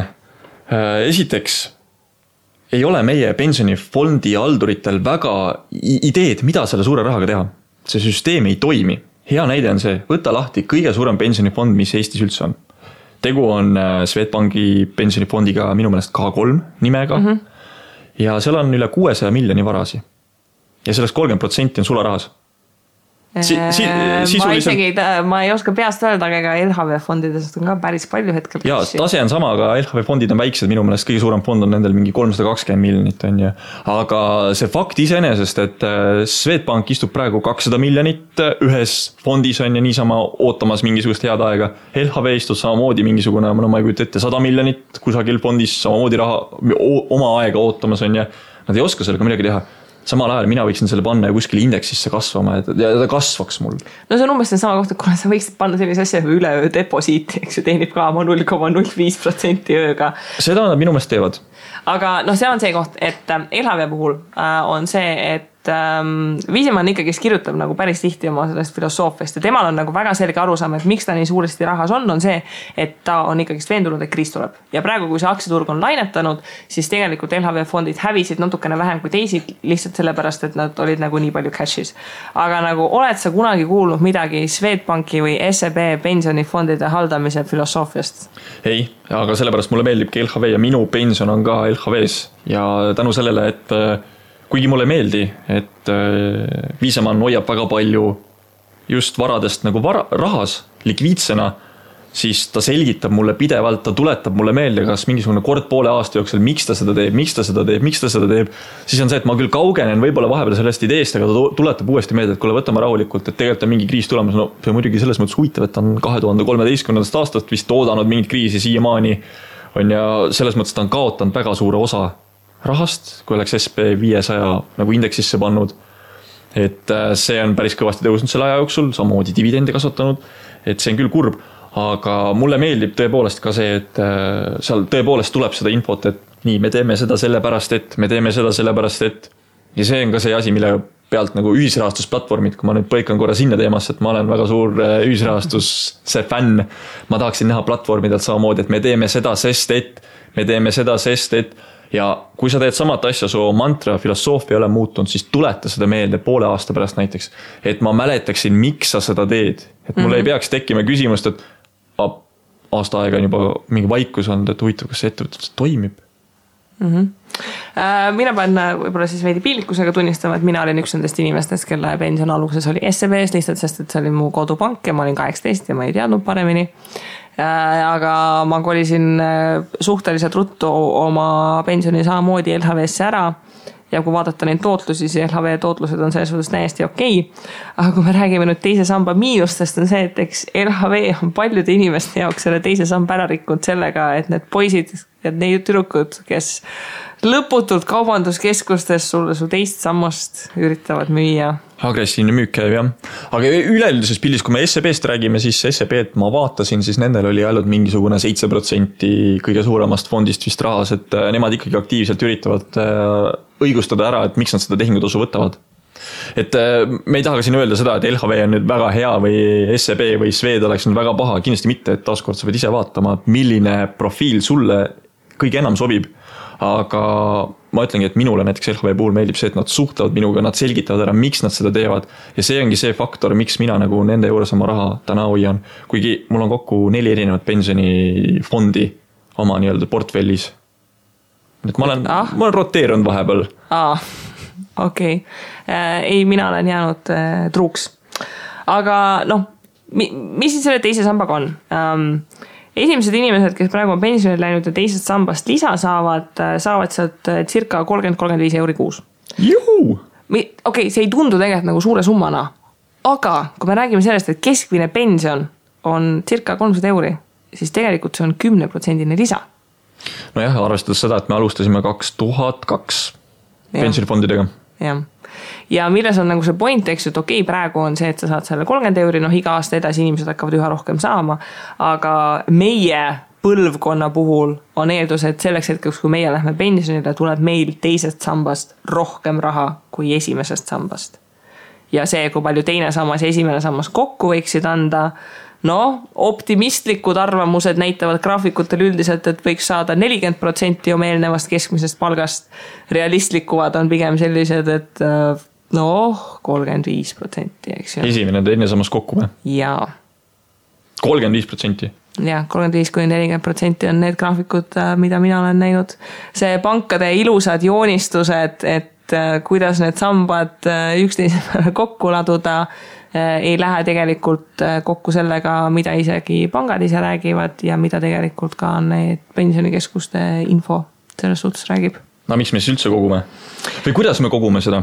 Esiteks, ei ole meie pensionifondi halduritel väga ideed, mida selle suure rahaga teha. See süsteem ei toimi. Hea näide on see, võta lahti kõige suurem pensionifond, mis Eestis üldse on. Tegu on Swedbanki pensionifondiga minu meelest K3 nimega ja seal on üle 600 miljoni varasi. Ja sellest 30% on sularahas. Ma ei oska peast öelda, aga LHV fondidest on ka päris palju hetkel. Ja tase on sama, aga LHV fondid on väiksed, minu meelest kõige suurem fond on nendel mingi 320 miljonit on ju. Aga see fakt iseenesest, et Swedbank istub praegu 200 miljonit ühes fondis on ja niisama ootamas mingisugust head aega. LHV istud samamoodi mingisugune, ma ei kujuta ette 100 miljonit kusagil fondis samamoodi raha oma aega ootamas on ja nad ei oska sellega midagi teha. Samal ajal mina võiksin selle panna ja kuskil indeksisse kasvama ja ta kasvaks mul. See on umbes sama kohta, kuna sa võiksid panna sellise asja üleöö deposiiti, eks ju, teenib ka 0,05% ööga. Seda nad minu meelest teevad. Aga see on see koht, et LHV puhul on see, et Viisemann ikkagi kirjutab nagu päris tihti oma sellest filosoofiast ja temal on nagu väga selge arusaam, et miks ta nii suuresti rahas on see, et ta on ikkagi veendunud, et kriis tuleb. Ja praegu, kui see aktsiaturg on lainetanud, siis tegelikult LHV fondid hävisid natukene vähem kui teised lihtsalt sellepärast, et nad olid nagu nii palju cash'is. Aga nagu oled sa kunagi kuulnud midagi Swedbanki või SEB pensionifondide haldamise filosoofiast? Ei, aga sellepärast mulle meeldibki LHV ja minu pension on ka LHVs ja tänu sellele, et kuigi mulle meeldi, et Viisemann hoiab väga palju just varadest nagu rahas, likviidsena, siis ta selgitab mulle pidevalt, ta tuletab mulle meelde, kas mingisugune kord poole aasta jooksul, miks ta seda teeb, siis on see, et ma küll kaugenen võib-olla vahepeal sellest ideest, aga ta tuletab uuesti meelde, et kuule, võtame rahulikult, et tegelikult on mingi kriis tulemas, no see on muidugi selles mõttes huvitav, et ta on 2013. aastast vist oodanud mingit kriisi siiamaani, on ja selles mõttes ta on kaotanud väga suure osa rahast, kui oleks SP500 nagu indeksisse pannud, et see on päris kõvasti tõusnud selle aja jooksul, samamoodi dividendi kasvatanud, et see on küll kurb, aga mulle meeldib tõepoolest ka see, et seal tõepoolest tuleb seda infot, et nii, me teeme seda sellepärast, et me teeme seda sellepärast, et ja see on ka see asi, mille pealt nagu ühisrahastusplatvormid, kui ma nüüd põikan korra sinna teemasse, et ma olen väga suur ühisrahastuse fänn, ma tahaksin näha platvormidelt samamoodi, et me teeme seda, sest et ja kui sa teed samat asja, su mantra, filosoofia ei ole muutunud, siis tuleta seda meelde poole aasta pärast näiteks, et ma mäletaksin, miks sa seda teed. Et mul ei peaks tekkima küsimust, et aasta aega on juba mingi vaikus olnud, et huvitav, kas see ettevõte toimib. Mina pean võib-olla siis veidi piinlikkusega tunnistama, et mina olin üks nendest inimestest, kelle pension alguses oli SEB-s lihtsalt, sest et see oli mu kodupank ja ma olin 18 ja ma ei teadnud paremini. Aga ma kolisin suhteliselt ruttu oma pensioni samamoodi LHV-sse ära ja kui vaadata neid tootlusi, siis LHV tootlused on selles suhtes täiesti okei. Aga kui me räägime nüüd teise samba miinustest, on see, et eks LHV on paljude inimeste jaoks selle teise samba ära rikkunud sellega, et need poisid ja need tüdrukud, kes lõputult kaubanduskeskustes sulle su teist sammast üritavad müüa. Agressiivne müük käib, jah. Aga üleüldises pildis, kui me SEB-st räägime, siis SEB-d ma vaatasin, siis nendel oli ainult mingisugune 7% kõige suuremast fondist vist rahas, et nemad ikkagi aktiivselt üritavad õigustada ära, et miks nad seda tehingutasu võtavad. Et me ei taha ka siin öelda seda, et LHV on nüüd väga hea või SEB või Swed oleks nüüd väga paha, kindlasti mitte, et taaskord sa pead ise vaatama, milline profiil sulle kõige enam sobib. Aga ma ütlengi, et minule näiteks LHV puhul meeldib see, et nad suhtlevad minuga, nad selgitavad ära, miks nad seda teevad. Ja see ongi see faktor, miks mina nagu nende juures oma raha täna hoian. Kuigi mul on kokku 4 erinevat pensionifondi oma nii-öelda portfellis. Et ma olen roteerunud vahepeal. Okei. Ei, mina olen jäänud truuks. Aga mis siis selle teise sambaga on? Esimesed inimesed, kes praegu on pensionil läinud ja teisest sambast lisa saavad sealt circa 30-35 euri kuus. Juhu! Okei, see ei tundu tegelikult nagu suure summana, aga kui me räägime sellest, et keskmine pension on circa 300 euri, siis tegelikult see on 10% lisa. No jah, arvestades seda, et me alustasime 2002 pensionifondidega. Jah. Ja milles on nagu see point, eks, et okei, praegu on see, et sa saad selle 30 euri, iga aasta edasi inimesed hakkavad üha rohkem saama, aga meie põlvkonna puhul on eeldus, et selleks hetkeks, kui meie lähme pensionile, tuleb meil teisest sambast rohkem raha kui esimesest sambast. Ja see, kui palju teine sammas ja esimene sammas kokku võiksid anda, optimistlikud arvamused näitavad graafikutel üldiselt, et võiks saada 40% oma eelnevast keskmisest palgast. Realistlikuvad on pigem sellised, et 35%, eks ju. Esimene teine sammas kokku või? Jaa. 35%? Jah, 35-40% on need graafikud, mida mina olen näinud. See pankade ilusad joonistused, et kuidas need sambad üksteisele kokku laduda, ei lähe tegelikult kokku sellega, mida isegi pangad ise räägivad ja mida tegelikult ka need pensionikeskuste info selles suhtes räägib. No miks me siis üldse kogume? Või kuidas me kogume seda?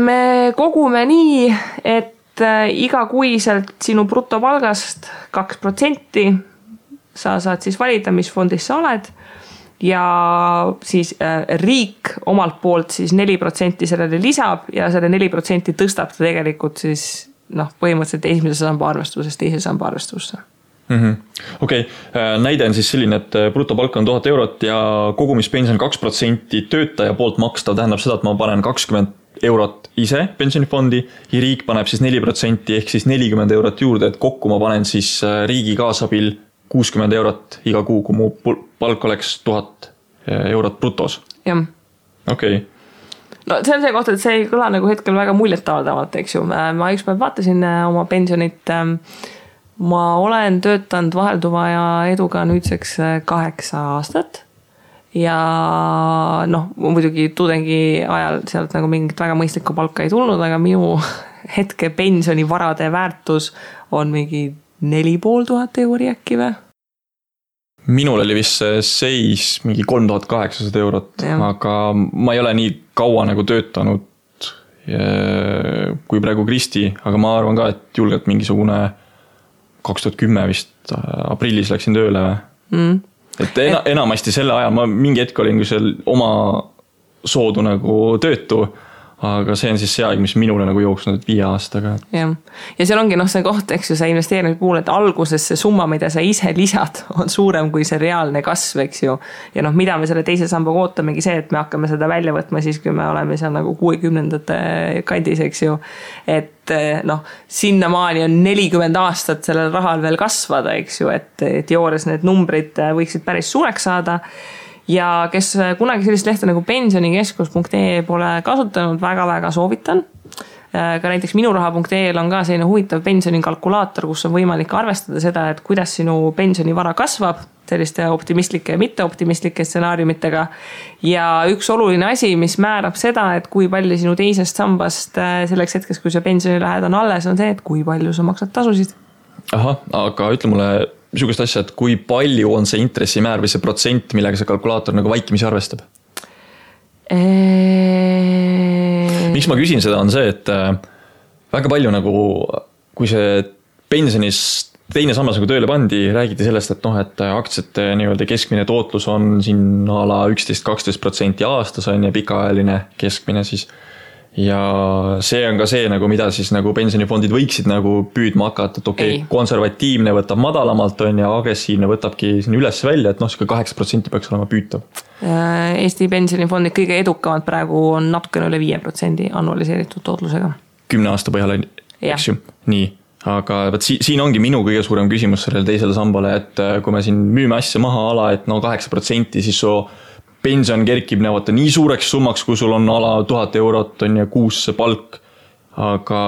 Me kogume nii, et igakuiselt sinu brutopalgast 2% sa saad siis valida, mis fondis sa oled ja siis riik omalt poolt siis 4% sellele lisab ja selle 4% tõstab ta tegelikult siis põhimõtteliselt esimese samba arvestusest teise samba arvestusse. Okei, näide on siis selline, et brutopalk on 1000 eurot ja kogumispension 2% töötaja poolt makstav tähendab seda, et ma panen 20 eurot ise pensionifondi ja riik paneb siis 4% ehk siis 40 eurot juurde, et kokku ma panen siis riigi kaasabil 60 eurot iga kuu, kui mu palk oleks 1000 eurot brutos. Jah. Okei. No see on see koht, et see ei kõla nagu hetkel väga muljetavaldavalt, eks ju. Ma üks päev vaatasin oma pensionit. Ma olen töötanud vahelduva ja eduga nüüdseks 8 aastat. Ja muidugi tudengi ajal sealt nagu mingit väga mõistlikku palka ei tulnud, aga minu hetke pensionivarade väärtus on mingi 4500 euri äkki või? Minul oli vist see seis mingi 3800 eurot, aga ma ei ole nii kaua nagu töötanud kui praegu Kristi, aga ma arvan ka, et julgelt mingisugune 2010 vist aprillis läksin tööle. Et enamasti selle ajal ma mingi hetk olin seal oma soodu nagu töötu, aga see on siis see aeg, mis minule nagu jooksnud 5 aastaga. Ja seal ongi see koht, eks ju, see investeerimise puhul, et alguses see summa, mida sa ise lisad, on suurem kui see reaalne kasv, eks ju. Ja mida me selle teise sambaga ootamegi see, et me hakkame seda välja võtma siis, kui me oleme seal nagu 60ndate kandis, eks ju. Et sinnamaani on 40 aastat sellel rahal veel kasvada, eks ju, et joores need numbrid võiksid päris suureks saada. Ja kes kunagi sellist lehte nagu pensionikeskus.ee pole kasutanud, väga-väga soovitan. Ka näiteks minuraha.ee on ka selline huvitav pensionikalkulaator, kus on võimalik arvestada seda, et kuidas sinu pensionivara kasvab selliste optimistlike ja mitteoptimistlike stsenaariumitega. Ja üks oluline asi, mis määrab seda, et kui palju sinu teisest sambast selleks hetkes, kui see pensionilähed on alles, on see, et kui palju sa maksad tasusid. Aha, aga ütle mulle niisugust asja, et kui palju on see intressimäär või see protsent, millega see kalkulaator nagu vaikimisi arvestab? Miks ma küsin seda, on see, et väga palju nagu, kui see pensionis teine sammas nagu tööle pandi, räägiti sellest, et aktsiate nii-öelda keskmine tootlus on siin ala 11-12% aastas on ja pikaajaline keskmine siis. Ja see on ka see, nagu, mida siis nagu pensionifondid võiksid nagu püüdma hakata, et konservatiivne võtab madalamalt on ja agressiivne võtabki siin üles välja, et 8% peaks olema püütav. Eesti pensionifondid kõige edukamad praegu on natukene üle 5% annualiseeritud tootlusega. 10 aasta põhjal, eks ju? Nii, aga siin ongi minu kõige suurem küsimus sellele teisele sambale, et kui me siin müüme asja maha ala, et 8%, siis pension kerkib nii suureks summaks, kui sul on ala 1000 eurot on ja kuus see palk, aga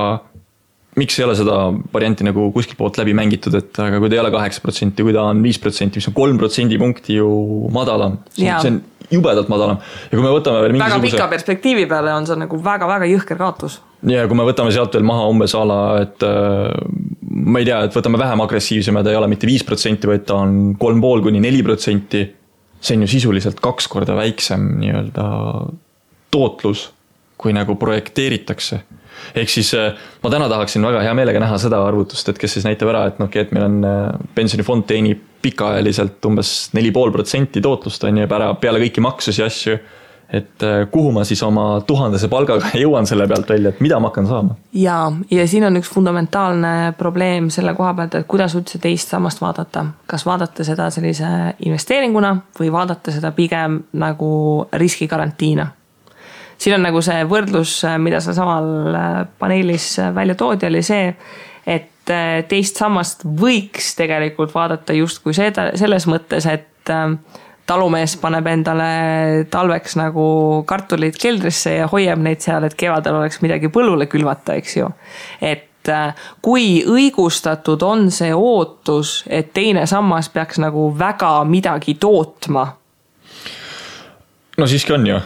miks ei ole seda varianti nagu kuskil poolt läbi mängitud, et aga kui ta ei ole 8%, kui ta on 5%, mis on 3% punkti ju madalam, see on jubedalt madalam. Ja kui me võtame veel väga pika perspektiivi peale on see nagu väga-väga jõhker kaotus. Ja kui me võtame sealt veel maha umbes ala, et ma ei tea, et võtame vähem agressiivsema, ta ei ole mitte 5%, vaid ta on 3,5–4%, see on ju sisuliselt 2 korda väiksem nii-öelda tootlus, kui nagu projekteeritakse. Ehk siis ma täna tahaksin väga hea meelega näha seda arvutust, et kes siis näitab ära, et meil on pensionifond teenib pikaajaliselt umbes 4,5% tootlust on ja peale kõiki maksusi asju, et kuhu ma siis oma 1000 palgaga jõuan selle pealt välja, et mida ma hakkan saama? Ja siin on üks fundamentaalne probleem selle koha pealt, et kuidas üldse teist sammast vaadata. Kas vaadata seda sellise investeeringuna või vaadata seda pigem nagu riskigarantiina. Siin on nagu see võrdlus, mida sa samal paneelis välja toodi, oli see, et teist sammast võiks tegelikult vaadata just kui selles mõttes, et talumees paneb endale talveks nagu kartulid keldrisse ja hoiab neid seal, et kevadel oleks midagi põllule külvata, eks ju. Et kui õigustatud on see ootus, et teine sammas peaks nagu väga midagi tootma? No siiski on ju.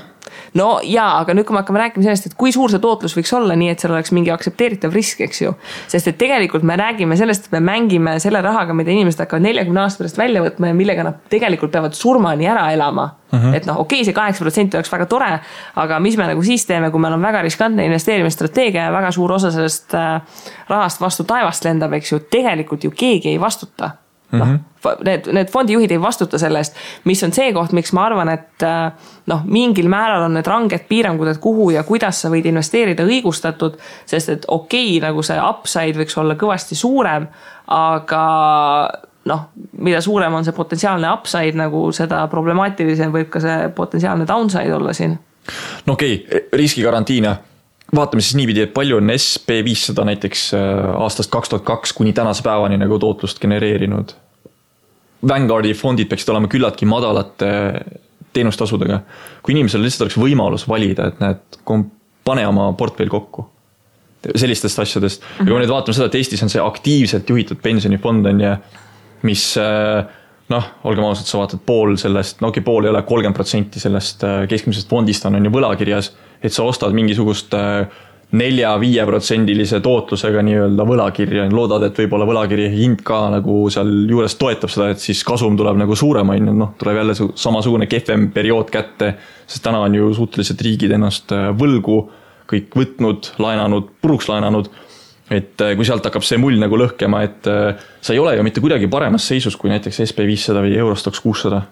No jaa, aga nüüd kui me hakkame rääkima sellest, et kui suur see tootlus võiks olla, nii et seal oleks mingi aksepteeritav risk, eks ju. Sest et tegelikult me räägime sellest, et me mängime selle rahaga, mida inimesed hakkavad 40 aasta pärast välja võtma ja millega nad tegelikult peavad surmani ära elama. Et see 8% oleks väga tore, aga mis me nagu siis teeme, kui meil on väga riskantne investeerimisstrateegia ja väga suur osa sellest rahast vastu taevast lendab, eks ju, tegelikult ju keegi ei vastuta. Need fondijuhid ei vastuta sellest, mis on see koht, miks ma arvan, et mingil määral on need ranged piirangud, et kuhu ja kuidas sa võid investeerida õigustatud, sest et nagu see upside võiks olla kõvasti suurem, aga mida suurem on see potentsiaalne upside, nagu seda problemaatilisem võib ka see potentsiaalne downside olla siin. Riskigarantiina. Vaatame siis niipidi, et palju on SP500 näiteks aastast 2002 kuni tänase päevani nagu tootlust genereerinud. Vanguardi fondid peaksid olema küllaltki madalate teenustasudega. Kui inimesel lihtsalt oleks võimalus valida, et pane oma portfell kokku sellistest asjadest. Ja kui me nüüd vaatame seda, et Eestis on see aktiivselt juhitud pensionifond on ja mis, olgem ausalt, sa vaatad pool sellest, pool ei ole 30% sellest keskmisest fondist on ju võlakirjas, et sa ostad mingisugust 4-5% tootlusega nii-öelda võlakirja, loodad, et võib-olla võlakirja hind ka nagu seal juures toetab seda, et siis kasum tuleb nagu suurem, tuleb jälle samasugune kehvem periood kätte, sest täna on ju suhteliselt riigid ennast võlgu kõik võtnud, laenanud, puruks laenanud, et kui sealt hakkab see mull nagu lõhkema, et sa ei ole ju mitte kuidagi paremas seisus kui näiteks SP500 või Eurostoxx 600.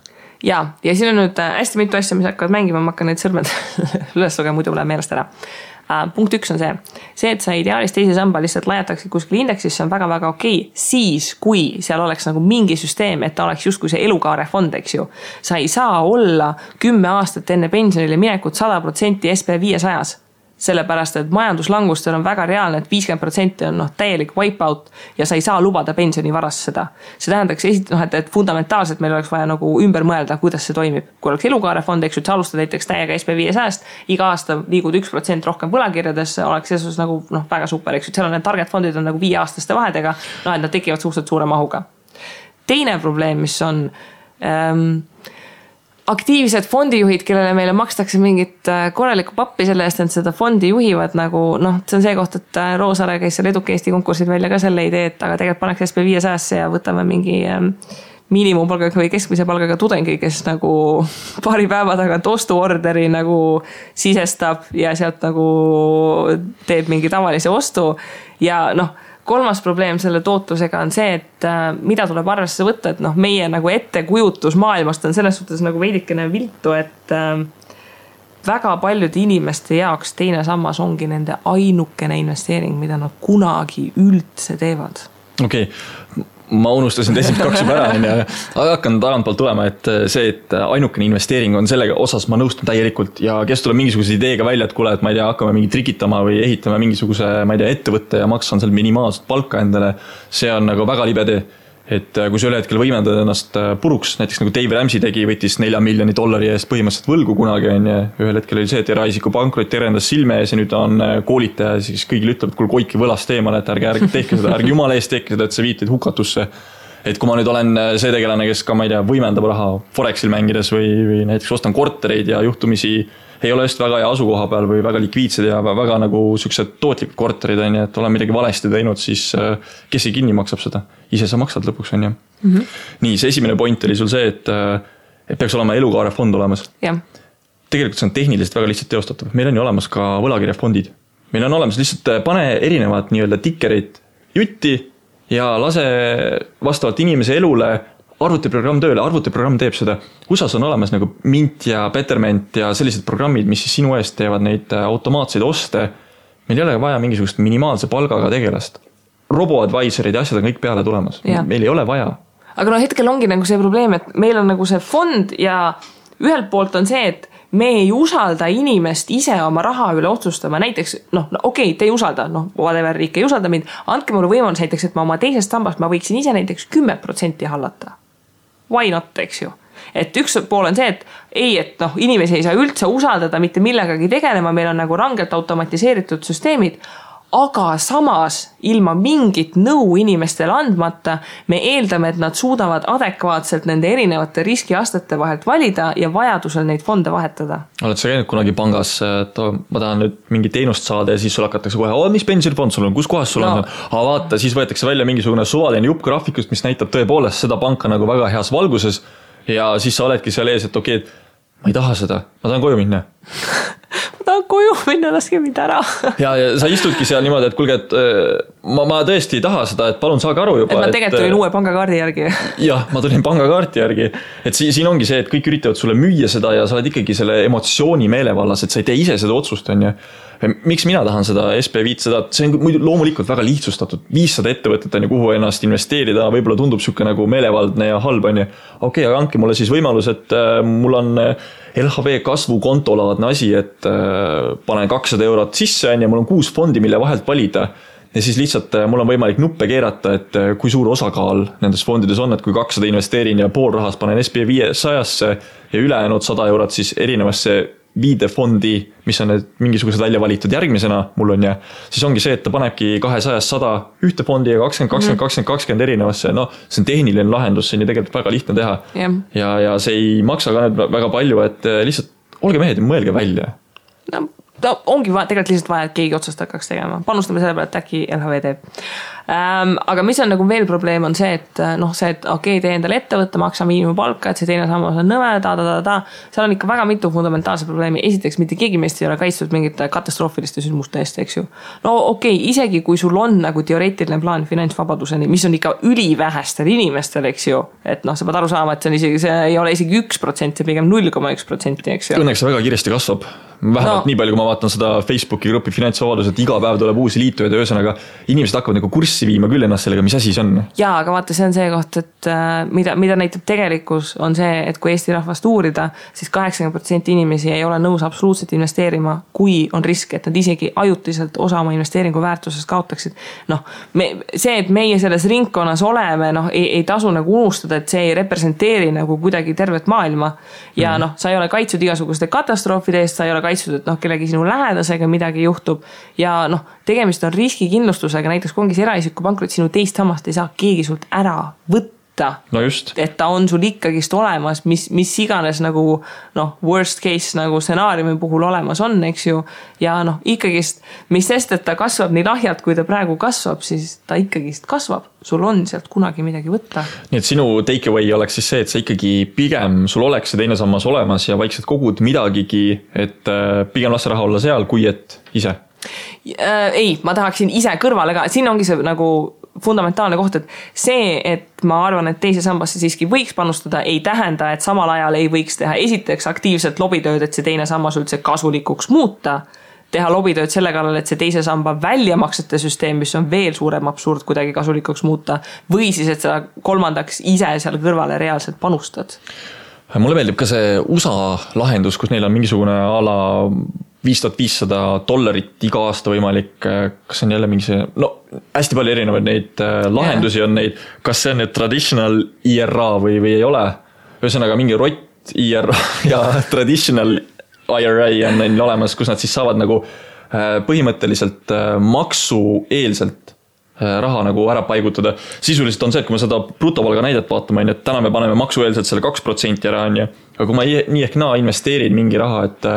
Ja siin on nüüd hästi mitu asja, mis hakkavad mängima, ma hakkan neid sõrmed üles lugema, muidu läheb meelest ära. Punkt 1 on see, et sa ideaalis teise samba lihtsalt lajataksid kuskil indeksis, see on väga-väga okei. Siis, kui seal oleks nagu mingi süsteem, et ta oleks just kui see elukaarefond, eks ju. Sa ei saa olla 10 aastat enne pensionile minekut 100% SP500-s. Sellepärast, et majanduslangustel on väga reaalne, et 50% on täielik wipeout ja sa ei saa lubada pensionivaras seda. See tähendaks et fundamentaalselt meil oleks vaja nagu ümber mõelda, kuidas see toimib. Kui oleks elukaarefond, eks ju, et sa alustad näiteks täiega SP500-st, iga aasta liigud 1% rohkem võlakirjades, oleks selles nagu väga super, eks ju, seal on need target fondid on nagu 5-aastaste vahedega, et nad tekivad suhteliselt suure mahuga. Teine probleem, mis on aktiivsed fondijuhid, kellele meile makstakse mingit korralikku pappi selle eest, et seda fondi juhivad nagu, see on see koht, et Roosaare käis seal Eduka Eesti konkursid välja ka selle idee, et aga tegelikult paneks SP500-sse ja võtame mingi miinimumpalgaga või keskmise palgaga tudengi, kes nagu paari päeva tagant ostuorderi nagu sisestab ja sealt nagu teeb mingi tavalise ostu ja kolmas probleem selle tootlusega on see, et mida tuleb arvesse võtta, et meie nagu ettekujutus maailmast on selles suhtes nagu veidikene viltu, et väga paljude inimeste jaoks teine sammas ongi nende ainukene investeering, mida nad kunagi üldse teevad. Okei. Ma unustasin teised 2 juba ära, aga hakkan tagantpoolt tulema, et see, et ainukene investeering on sellega osas, ma nõustun täielikult ja kes tuleb mingisuguse ideega välja, et kuule, et ma ei tea, hakkame mingi trikitama või ehitame mingisuguse, ma ei tea, ettevõtte ja maksan seal minimaalset palka endale, see on nagu väga libe tee. Et kui sa üle hetkel võimendad ennast puruks, näiteks nagu Dave Ramsey tegi, võttis $4 miljoni eest põhimõtteliselt võlgu kunagi on ja ühel hetkel oli see, et eraisiku pankrot terendas silme ees ja nüüd on koolitaja ja siis kõigil ütleb, et kuule koiki võlast eemale, et ärge tehke seda, ärge jumala eest tehke seda, et see viitid hukatusse. Et kui ma nüüd olen see tegelane, kes ka, ma ei tea, võimendab raha Forexil mängides või näiteks ostan kortereid ja juhtumisi ei ole just väga hea asukoha peal või väga likviidsed ja väga nagu sellised tootlikud korterid on ja et olen midagi valesti teinud, siis kes ei kinni maksab seda? Ise sa maksad lõpuks on ja. Nii, see esimene point oli sul see, et peaks olema elukaarefond olemas. Ja. Tegelikult see on tehniliselt väga lihtsalt teostatav. Meil on ju olemas ka võlakirjafondid. Meil on olemas lihtsalt pane erinevad nii-öelda tikkerid jutti ja lase vastavalt inimese elule arvutiprogramm tööle, arvutiprogramm teeb seda. USAs on olemas nagu Mint ja Betterment ja sellised programmid, mis siis sinu eest teevad neid automaatseid oste. Meil ei ole vaja mingisugust minimaalse palgaga tegelast. Robo-advisorid ja asjad on kõik peale tulemas. Meil ei ole vaja. Aga hetkel ongi nagu see probleem, et meil on nagu see fond ja ühelt poolt on see, et me ei usalda inimest ise oma raha üle otsustama. Näiteks, okei, te ei usalda, whatever, riik ei usalda mind. Andke mulle võimalus näiteks, et ma oma teisest sambast ma võiksin ise näiteks 10% hallata. Why not, eks ju? Et üks pool on see, et inimesi ei saa üldse usaldada mitte millegagi tegelema, meil on nagu rangelt automatiseeritud süsteemid, aga samas ilma mingit nõu inimestele andmata me eeldame, et nad suudavad adekvaatselt nende erinevate riskiastete vahelt valida ja vajadusel neid fonde vahetada. Oled sa käinud kunagi pangas, et ma tahan nüüd mingi teenust saada ja siis sul hakatakse kohe, mis pensionifond sul on, kus kohas sul on? Aga vaata, siis võetakse välja mingisugune suvaline jupp graafikust, mis näitab tõepoolest seda panka nagu väga heas valguses ja siis sa oledki seal ees, et okei, ma ei taha seda, ma tahan koju minna. Ma tahan koju minna, laske mind ära. ja sa istudki seal niimoodi, et kuulge, et ma tõesti ei taha seda, et palun saage aru juba. Et ma tegelikult tulin uue pangakaardi järgi. Jah, ma tulin pangakaarti järgi. Et siin ongi see, et kõik üritavad sulle müüa seda ja sa oled ikkagi selle emotsiooni meelevallas, et sa ei tee ise seda otsust, on ju. Miks mina tahan seda SP500? See on muidu loomulikult väga lihtsustatud. 500 ettevõtet on ju, kuhu ennast investeerida, võib-olla tundub siuke nagu meelevaldne ja halb on ju. Okei, aga andke mulle siis võimalus, et mul on LHV kasvukontolaadne asi, et panen 200 eurot sisse ja mul on 6 fondi, mille vahelt valida. Ja siis lihtsalt mul on võimalik nuppe keerata, et kui suur osakaal nendes fondides on, et kui 200 investeerin ja pool rahast panen SP500-sse ja ülejäänud 100 eurot siis erinevasse viidefondi, mis on need mingisugused välja valitud järgmisena mul on ja siis ongi see, et ta panebki 200-100 ühte fondi ja 20 erinevasse. See on tehniline lahendus, see on ju tegelikult väga lihtne teha. Ja see ei maksa ka väga palju, et lihtsalt olge mehed ja mõelge välja. ongi tegelikult lihtsalt vaja, et keegi otsast hakkaks tegema. Panustame selle peale, et äkki LHV teeb. Aga mis on nagu veel probleem on see, et et okei, tee endale ettevõtte, maksa miinimumpalka, et see teine sammas on nõme, seal on ikka väga mitu fundamentaalse probleemi. Esiteks, mitte keegi meist ei ole kaitstud mingite katastroofiliste sündmuste eest, eks ju. No okei, isegi kui sul on nagu teoreetiline plaan finantsvabaduseni, mis on ikka ülivähestel inimestel, eks ju, et sa pead aru saama, et see ei ole isegi 1%, see pigem 0,1%, eks ju. Õnneks see väga kiiresti kasvab. Vähemalt nii palju, kui ma vaatan seda Facebooki gruppi finantsvabadus, et iga päev tuleb uusi liitujaid ja ühesõnaga inimesed hakkavad nagu kurssi viima küll ennast sellega, mis asi see on. Jaa, aga vaata, see on see koht, et mida näitab tegelikkus on see, et kui Eesti rahvast uurida, siis 80% inimesi ei ole nõus absoluutselt investeerima, kui on risk, et nad isegi ajutiselt osa oma investeeringu väärtusest kaotaksid. See, et meie selles ringkonnas oleme, ei tasu nagu unustada, et see ei representeeri nagu kuidagi tervet maailma ja sa ei ole kaitsud igasuguste katastroofide eest, sa ei ole kaitsud, et kellegi sinu lähedasega midagi juhtub ja tegemist on riskikindlustusega, näiteks kui ongi see eraisiku pankrot, sinu teist sammast ei saa keegi sult ära võtta. No just. Et ta on sul ikkagist olemas, mis iganes nagu worst case nagu stsenaariumi puhul olemas on, eks ju. Ja ikkagist, mis sest, et ta kasvab nii lahjalt, kui ta praegu kasvab, siis ta ikkagist kasvab. Sul on sealt kunagi midagi võtta. Nii et sinu takeaway oleks siis see, et sa ikkagi pigem sul oleks see teine sammas olemas ja vaikselt kogud midagigi, et pigem lasta raha olla seal, kui et ise. Ei, ma tahaksin ise kõrvale ka, siin ongi see nagu fundamentaalne koht, et see, et ma arvan, et teise sambasse siiski võiks panustada, ei tähenda, et samal ajal ei võiks teha esiteks aktiivselt lobitööd, et see teine sammas üldse kasulikuks muuta, teha lobitööd selle kallal, et see teise samba väljamaksete süsteem, mis on veel suurem absurd kuidagi kasulikuks muuta, või siis, et sa kolmandaks ise seal kõrvale reaalselt panustad. Mulle meeldib ka see USA lahendus, kus neil on mingisugune ala $5500 iga aasta võimalik, kas on jälle mingi see, hästi palju erinevaid neid lahendusi on neid, kas see on nüüd traditional IRA või ei ole, ühesõnaga mingi rott IRA ja traditional IRA on neil olemas, kus nad siis saavad nagu põhimõtteliselt maksueelselt raha nagu ära paigutada. Sisuliselt on see, et kui me seda brutopalga näidet vaatame, et täna me paneme maksueelselt selle 2% ära, aga kui ma nii ehk naa investeerin mingi raha, et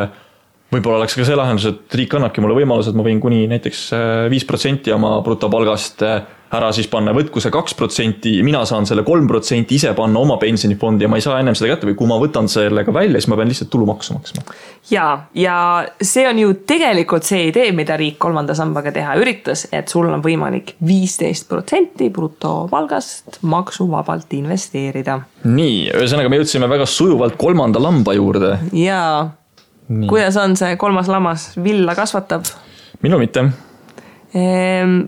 võib-olla oleks ka see lahendus, et riik annabki mulle võimalus, et ma võin kuni näiteks 5% oma brutopalgast ära siis panna, võtku see 2%, mina saan selle 3% ise panna oma pensionifondi ja ma ei saa ennem seda kätte või kui ma võtan sellega välja, siis ma pean lihtsalt tulumaksu maksma. Ja see on ju tegelikult see idee, mida riik kolmanda sambaga teha üritas, et sul on võimalik 15% brutopalgast maksuvabalt investeerida. Nii, ühesõnaga me jõudsime väga sujuvalt kolmanda lamba juurde. Jaa. Nii. Kuidas on see kolmas lammas villa kasvatab? Minu mitte.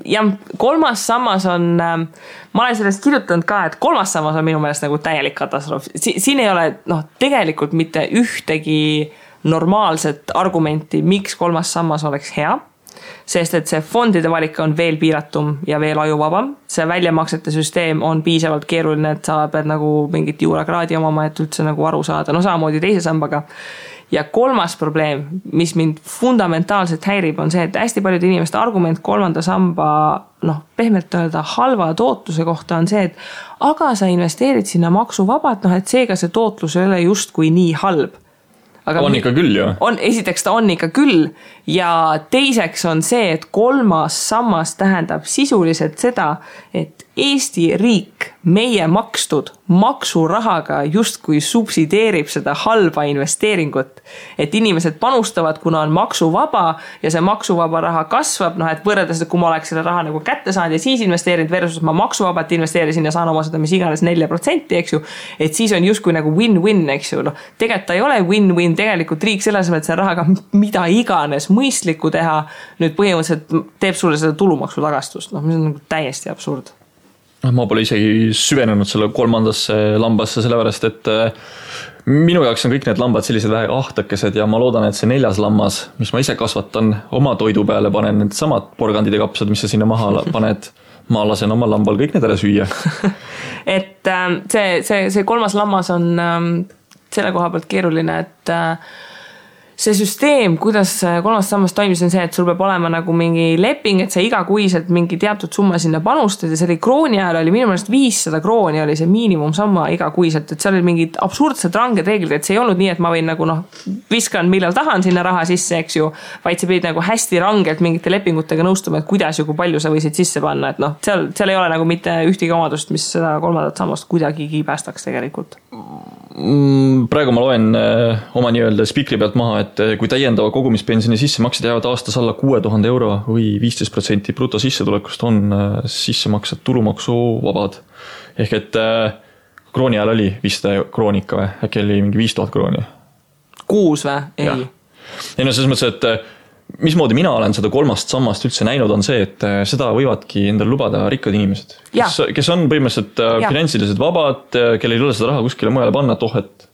Ja kolmas sammas on, ma olen sellest kirjutanud ka, et kolmas sammas on minu meelest nagu täielik katastroof. Siin ei ole tegelikult mitte ühtegi normaalset argumenti, miks kolmas sammas oleks hea, sest et see fondide valik on veel piiratum ja veel ajuvabam. See väljamaksete süsteem on piisavalt keeruline, et sa pead nagu mingit juurakraadi omama, et üldse nagu aru saada. Samamoodi teise sambaga. Ja kolmas probleem, mis mind fundamentaalselt häirib, on see, et hästi paljud inimeste argument kolmanda samba, pehmelt öelda halva tootluse kohta on see, et aga sa investeerid sinna maksuvabalt, et seega see tootlus ei ole justkui nii halb. Aga on ikka küll ju. Esiteks ta on ikka küll ja teiseks on see, et kolmas sammas tähendab sisuliselt seda, et Eesti riik meie makstud maksurahaga justkui subsideerib seda halba investeeringut. Et inimesed panustavad, kuna on maksuvaba ja see maksuvaba raha kasvab, et võrreldes, et kui ma oleks selle raha nagu kätte saanud ja siis investeerinud versus ma maksuvabalt investeerisin ja saan oma seda mis iganes 4%, eks ju, et siis on justkui nagu win-win, eks ju. Tegelikult ta ei ole win-win, tegelikult riik selles mõttes selle rahaga mida iganes mõistlikku teha, nüüd põhimõtteliselt teeb sulle seda tulumaksu tagastust, mis on nagu täiesti absurd. Ma pole isegi süvenenud selle kolmandasse lambasse, sellepärast, et minu jaoks on kõik need lambad sellised vähe ahtakesed ja ma loodan, et see 4. lammas, mis ma ise kasvatan, oma toidu peale panen need samad porgandid ja kapsad, mis sa sinna maha paned, ma lasen oma lambal kõik need ära süüa. Et see kolmas lammas on selle koha pealt keeruline, et see süsteem, kuidas kolmas sammas toimis on see, et sul peab olema nagu mingi leping, et sa igakuiselt mingi teatud summa sinna panustad ja see oli krooni ajal oli minu meelest 500 krooni oli see miinimumsamma igakuiselt, et seal oli mingid absurdsed ranged reeglid, et see ei olnud nii, et ma võin nagu viskan millal tahan sinna raha sisse, eks ju, vaid sa pidid nagu hästi rangelt mingite lepingutega nõustuma, et kuidas ja kui palju sa võisid sisse panna, et seal ei ole nagu mitte ühtegi omadust, mis seda kolmandat sammast kuidagigi päästaks tegelikult. Praegu ma loen oma nii-öelda spikri pealt maha, et kui täiendava kogumispensioni sissemaksed jäävad aastas alla 6000 euro või 15% bruto sissetulekust on sissemaksed tulumaksuvabad. Ehk et krooni ajal oli 500 kroonika või äkki oli mingi 5000 krooni. Kuus või? Ei. Ei no selles mõttes, et mismoodi mina olen seda kolmast sammast üldse näinud on see, et seda võivadki endale lubada rikkad inimesed, kes on põhimõtteliselt finantsiliselt vabad, kellel ei ole seda raha kuskile mujale panna, et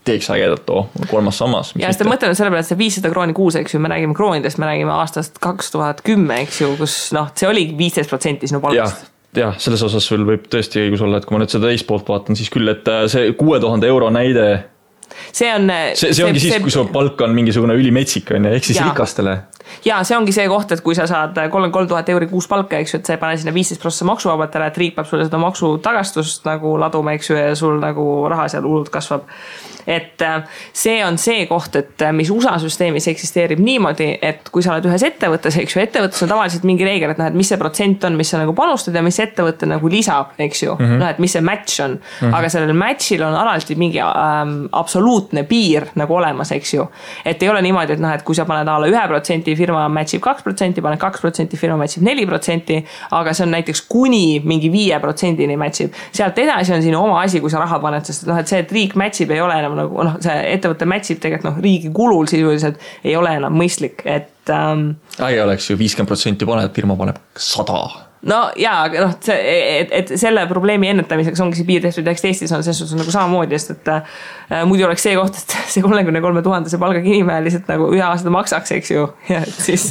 teeks ägedat kolmas sammas. Ja seda mõtlen selle peale, et see 500 krooni kuus, eks ju, me räägime kroonidest, me räägime aastast 2010, eks ju, kus see oli 15% sinu palgast. Ja selles osas sul võib tõesti õigus olla, et kui ma nüüd seda teist poolt vaatan, siis küll, et see 6000 euro näide see ongi siis, kui su palk on mingisugune ülimetsik, ehk siis rikastele. Ja see ongi see koht, et kui sa saad 33 000 euri kuus palka, eks ju, et sa ei pane sinna 15% maksuvabatele, et riik peab sulle seda maksu tagastust nagu laduma, eks ju, ja sul nagu raha seal hullult kasvab. Et see on see koht, et mis USA süsteemis eksisteerib niimoodi, et kui sa oled ühes ettevõttes, eks ju, ettevõttes on tavaliselt mingi reegel, et et mis see protsent on, mis sa nagu panustad ja mis ettevõtte nagu lisab, eks ju, et mis see match on. Aga sellel matchil on alati mingi absoluutne piir nagu olemas, eks ju. Et ei ole niimoodi, et kui sa paned alla 1%, firma matchib 2%, paned 2%, firma matchib 4%, aga see on näiteks kuni mingi 5%-ni matchib. Sealt edasi on sinu oma asi, kui sa raha paned, sest et see, et riik matchib ei ole enam nagu, see ettevõtte matchib tegelikult riigi kulul sisuliselt ei ole enam mõistlik, et ei oleks ju 50% paned, firma paneb 100. No jaa, aga et selle probleemi ennetamiseks ongi see piir tehtud, eks Eestis on selles suhtes nagu samamoodi, sest et muidu oleks see koht, et see 33 000 see palgaga inimene lihtsalt nagu ühe aasta maksaks, eks ju, ja et siis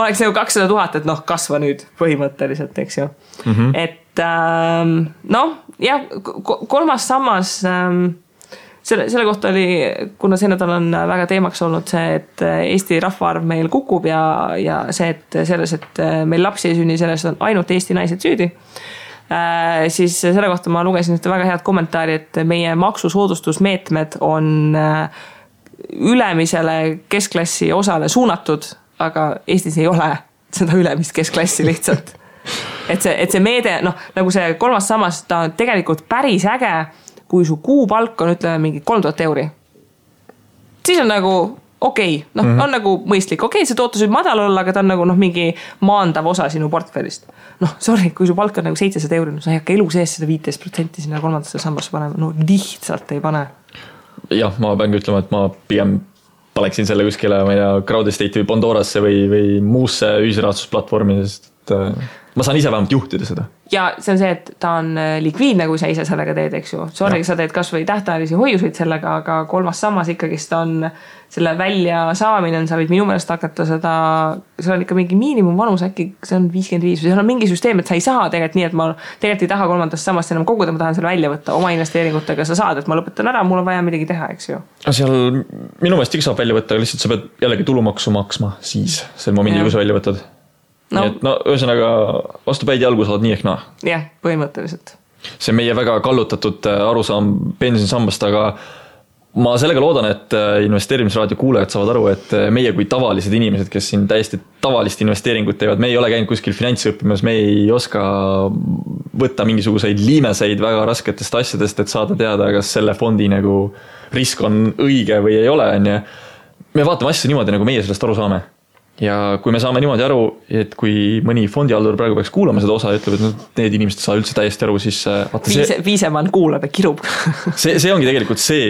oleks nagu 200 000, et kasva nüüd põhimõtteliselt, eks ju. Et jah, kolmas sammas selle kohta oli, kuna see nädal on väga teemaks olnud see, et Eesti rahvaarv meil kukub ja see, et selles, et meil lapsi ei sünni, selles on ainult Eesti naised süüdi, siis selle kohta ma lugesin ühte väga head kommentaari, et meie maksusoodustusmeetmed on ülemisele keskklassi osale suunatud, aga Eestis ei ole seda ülemist keskklassi lihtsalt. Et see meede, nagu see kolmas sammas, ta on tegelikult päris äge, kui su kuupalk on, ütleme, mingi 3000 euri. Siis on nagu okei, on nagu mõistlik. Okei, see tootlus võib madal olla, aga ta on nagu mingi maandav osa sinu portfellist. Sorry, kui su palk on nagu 700 euri, sa ei hakka elu sees seda 15% sinna kolmandasse sambasse panema. Lihtsalt ei pane. Jah, ma pean ütlema, et ma pigem paneksin selle kuskile, ma ei tea, Crowdestate või Pandorasse või muusse ühisrahastusplatvormi, sest ma saan ise vähemalt juhtida seda. Ja see on see, et ta on likviidne, kui sa ise sellega teed, eks ju. Sorry, sa teed kas või tähtajalisi hoiuseid sellega, aga kolmas sammas ikkagist on selle välja saamine, sa võid minu meelest hakata seda, seal on ikka mingi miinimumvanus, äkki see on 55, seal on mingi süsteem, et sa ei saa tegelikult nii, et ma tegelikult ei taha kolmandast sammast enam koguda, ma tahan selle välja võtta oma investeeringutega, sa saad, et ma lõpetan ära, mul on vaja midagi teha, eks ju. Seal minu meelest ikka saab välja võtta, lihtsalt sa pead jällegi tulumaksu maksma siis sel momendil, kui sa välja võtad. Nii et ühesõnaga vastu päid jalgu saad nii ehk naa. Jah, põhimõtteliselt. See on meie väga kallutatud arusaam pensionisambast, aga ma sellega loodan, et investeerimisraadio kuulajad saavad aru, et meie kui tavalised inimesed, kes siin täiesti tavalist investeeringut teevad, me ei ole käinud kuskil finantsõppimas, me ei oska võtta mingisuguseid liimeseid väga rasketest asjadest, et saada teada, kas selle fondi nagu risk on õige või ei ole. Me vaatame asja niimoodi, nagu meie sellest aru saame. Ja kui me saame niimoodi aru, et kui mõni fondihaldur praegu peaks kuulama seda osa ja ütleb, et need inimesed saa üldse täiesti aru, siis Viisemann kuulab ja kirub. see ongi tegelikult see,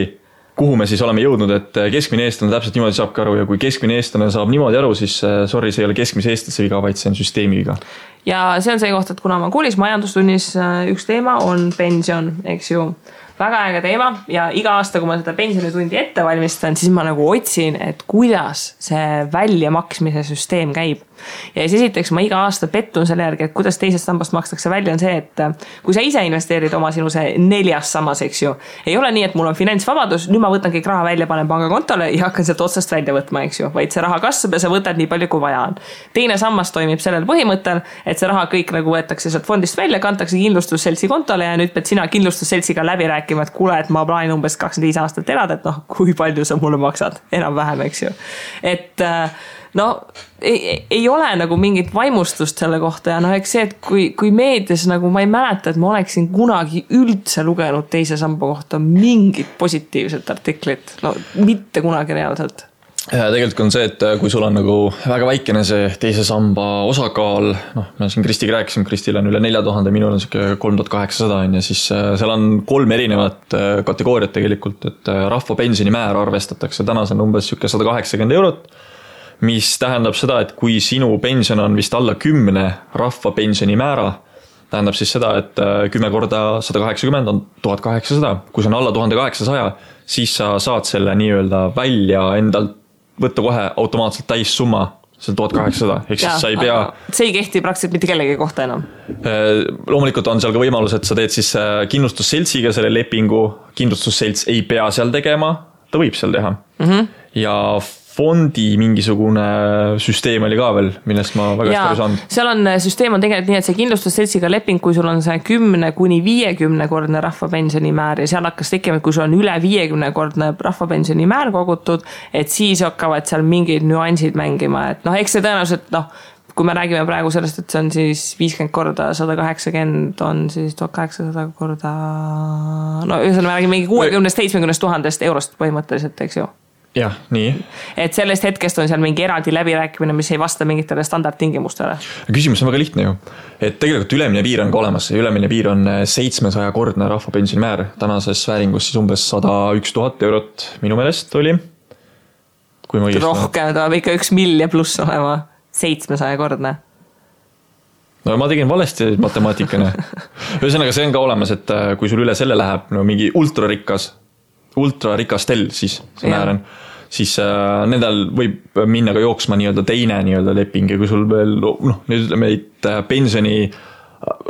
kuhu me siis oleme jõudnud, et keskmine eestlane täpselt niimoodi saabki aru ja kui keskmine eestlane saab niimoodi aru, siis sorry, see ei ole keskmise eestlase viga, vaid see on süsteemi viga. Ja see on see koht, et kuna ma koolis majandustunnis üks teema on pension, eks ju. Väga äge teema ja iga aasta, kui ma seda pensionitundi ette valmistan, siis ma nagu otsin, et kuidas see väljamaksmise süsteem käib. Ja siis esiteks ma iga aasta pettun selle järgi, et kuidas teisest sambast makstakse välja on see, et kui sa ise investeerid oma sinu see 4. sammas, eks ju, ei ole nii, et mul on finantsvabadus, nüüd ma võtan kõik raha välja, panen pangakontole ja hakkan sealt otsast välja võtma, eks ju, vaid see raha kasvab ja sa võtad nii palju, kui vaja on. Teine sammas toimib sellel põhimõttel, et see raha kõik nagu võetakse sealt fondist välja, kantakse kindlustusseltsi kontole ja nüüd pead sina kindlustusseltsiga läbi rääkima, et kuule, et ma plaanin umbes 25 aastat elada, et noh, kui palju sa mulle maksad, enam-vähem, eks ju. Et no ei ole nagu mingit vaimustust selle kohta ja noh, eks see, et kui meedias nagu ma ei mäleta, et ma oleksin kunagi üldse lugenud teise samba kohta mingit positiivset artiklit, no mitte kunagi reaalselt. Ja tegelikult on see, et kui sul on nagu väga väikene see teise samba osakaal, noh, me siin Kristiga rääkisime, Kristil on üle 4000, minul on 3800 ja siis seal on 3 erinevat kategooriat tegelikult, et rahvapensioni määr arvestatakse, täna see on umbes 180 €, mis tähendab seda, et kui sinu pension on vist alla 10 rahvapensioni määra, tähendab siis seda, et 10 korda 180 on 1800, kui see on alla 1800, siis sa saad selle nii-öelda välja endalt võtta kohe automaatselt täis summa, see on 1800, ehk siis sa ei pea... See ei kehti praktiliselt mitte kellegi kohta enam. Loomulikult on seal ka võimalus, et sa teed siis kindlustusseltsiga selle lepingu, kindlustusselts ei pea seal tegema, ta võib seal teha. Ja fondi mingisugune süsteem oli ka veel, millest ma väga hästi aru saanud. Seal on, süsteem on tegelikult nii, et see kindlustusseltsiga leping, kui sul on see 10–50 kordne rahvapensioni määr ja seal hakkas tekkima, et kui sul on üle 50 kordne rahvapensioni määr kogutud, et siis hakkavad seal mingid nüansid mängima, et noh, eks see tõenäoliselt, noh, kui me räägime praegu sellest, et see on siis 50 korda 180 on siis 1800 korda, no ühesõnaga me räägime mingi 60–70 000 eurost põhimõtteliselt, eks ju. Jah, nii. Et sellest hetkest on seal mingi eraldi läbirääkimine, mis ei vasta mingitele standardtingimustele. Küsimus on väga lihtne ju. Et tegelikult ülemine piir on ka olemas. Ülemine piir on 700 kordne rahvapensioni määr. Tänases vääringus siis umbes 101 000 € minu meelest oli. Kui ma rohkem, ta ikka 1 miljon pluss olema 700 kordne. No ma tegin valesti matemaatikane. Ühesõnaga see on ka olemas, et kui sul üle selle läheb no, mingi ultrarikastel siis see määr on, siis nendel võib minna ka jooksma nii-öelda teine nii-öelda leping ja kui sul veel, noh, nüüd ütleme, et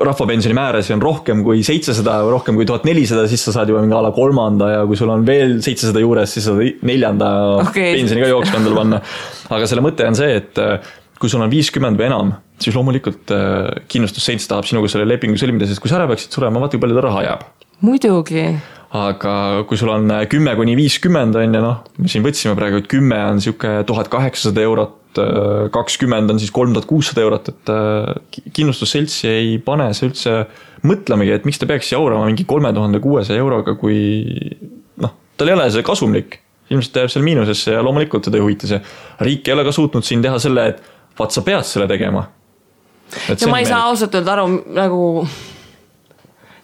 rahvapensioni määras on rohkem kui 700 või rohkem kui 1400, siis sa saad juba mingi ala 3. ja kui sul on veel 700 juures, siis saad 4. pensioni ka jooksma endale panna. Aga selle mõte on see, et kui sul on 50 või enam, siis loomulikult kindlustusselts tahab sinuga selle lepingu sõlmida, sest kui sa ära peaksid surema, vaata kui palju ta raha jääb. Muidugi. Aga kui sul on 10–50 on ja noh, me siin võtsime praegu, et 10 on siuke 1800 €, 20 on siis 3600 €, et kindlustusseltsi ei pane see üldse mõtlemegi, et miks ta peaks jaurama mingi 3600 €, kui noh, tal ei ole see kasumlik. Ilmselt jääb seal miinusesse ja loomulikult teda ei huvita see. Riik ei ole ka suutnud siin teha selle, et vaat sa pead selle tegema. Ja ma ei saa ausalt öelda aru nagu...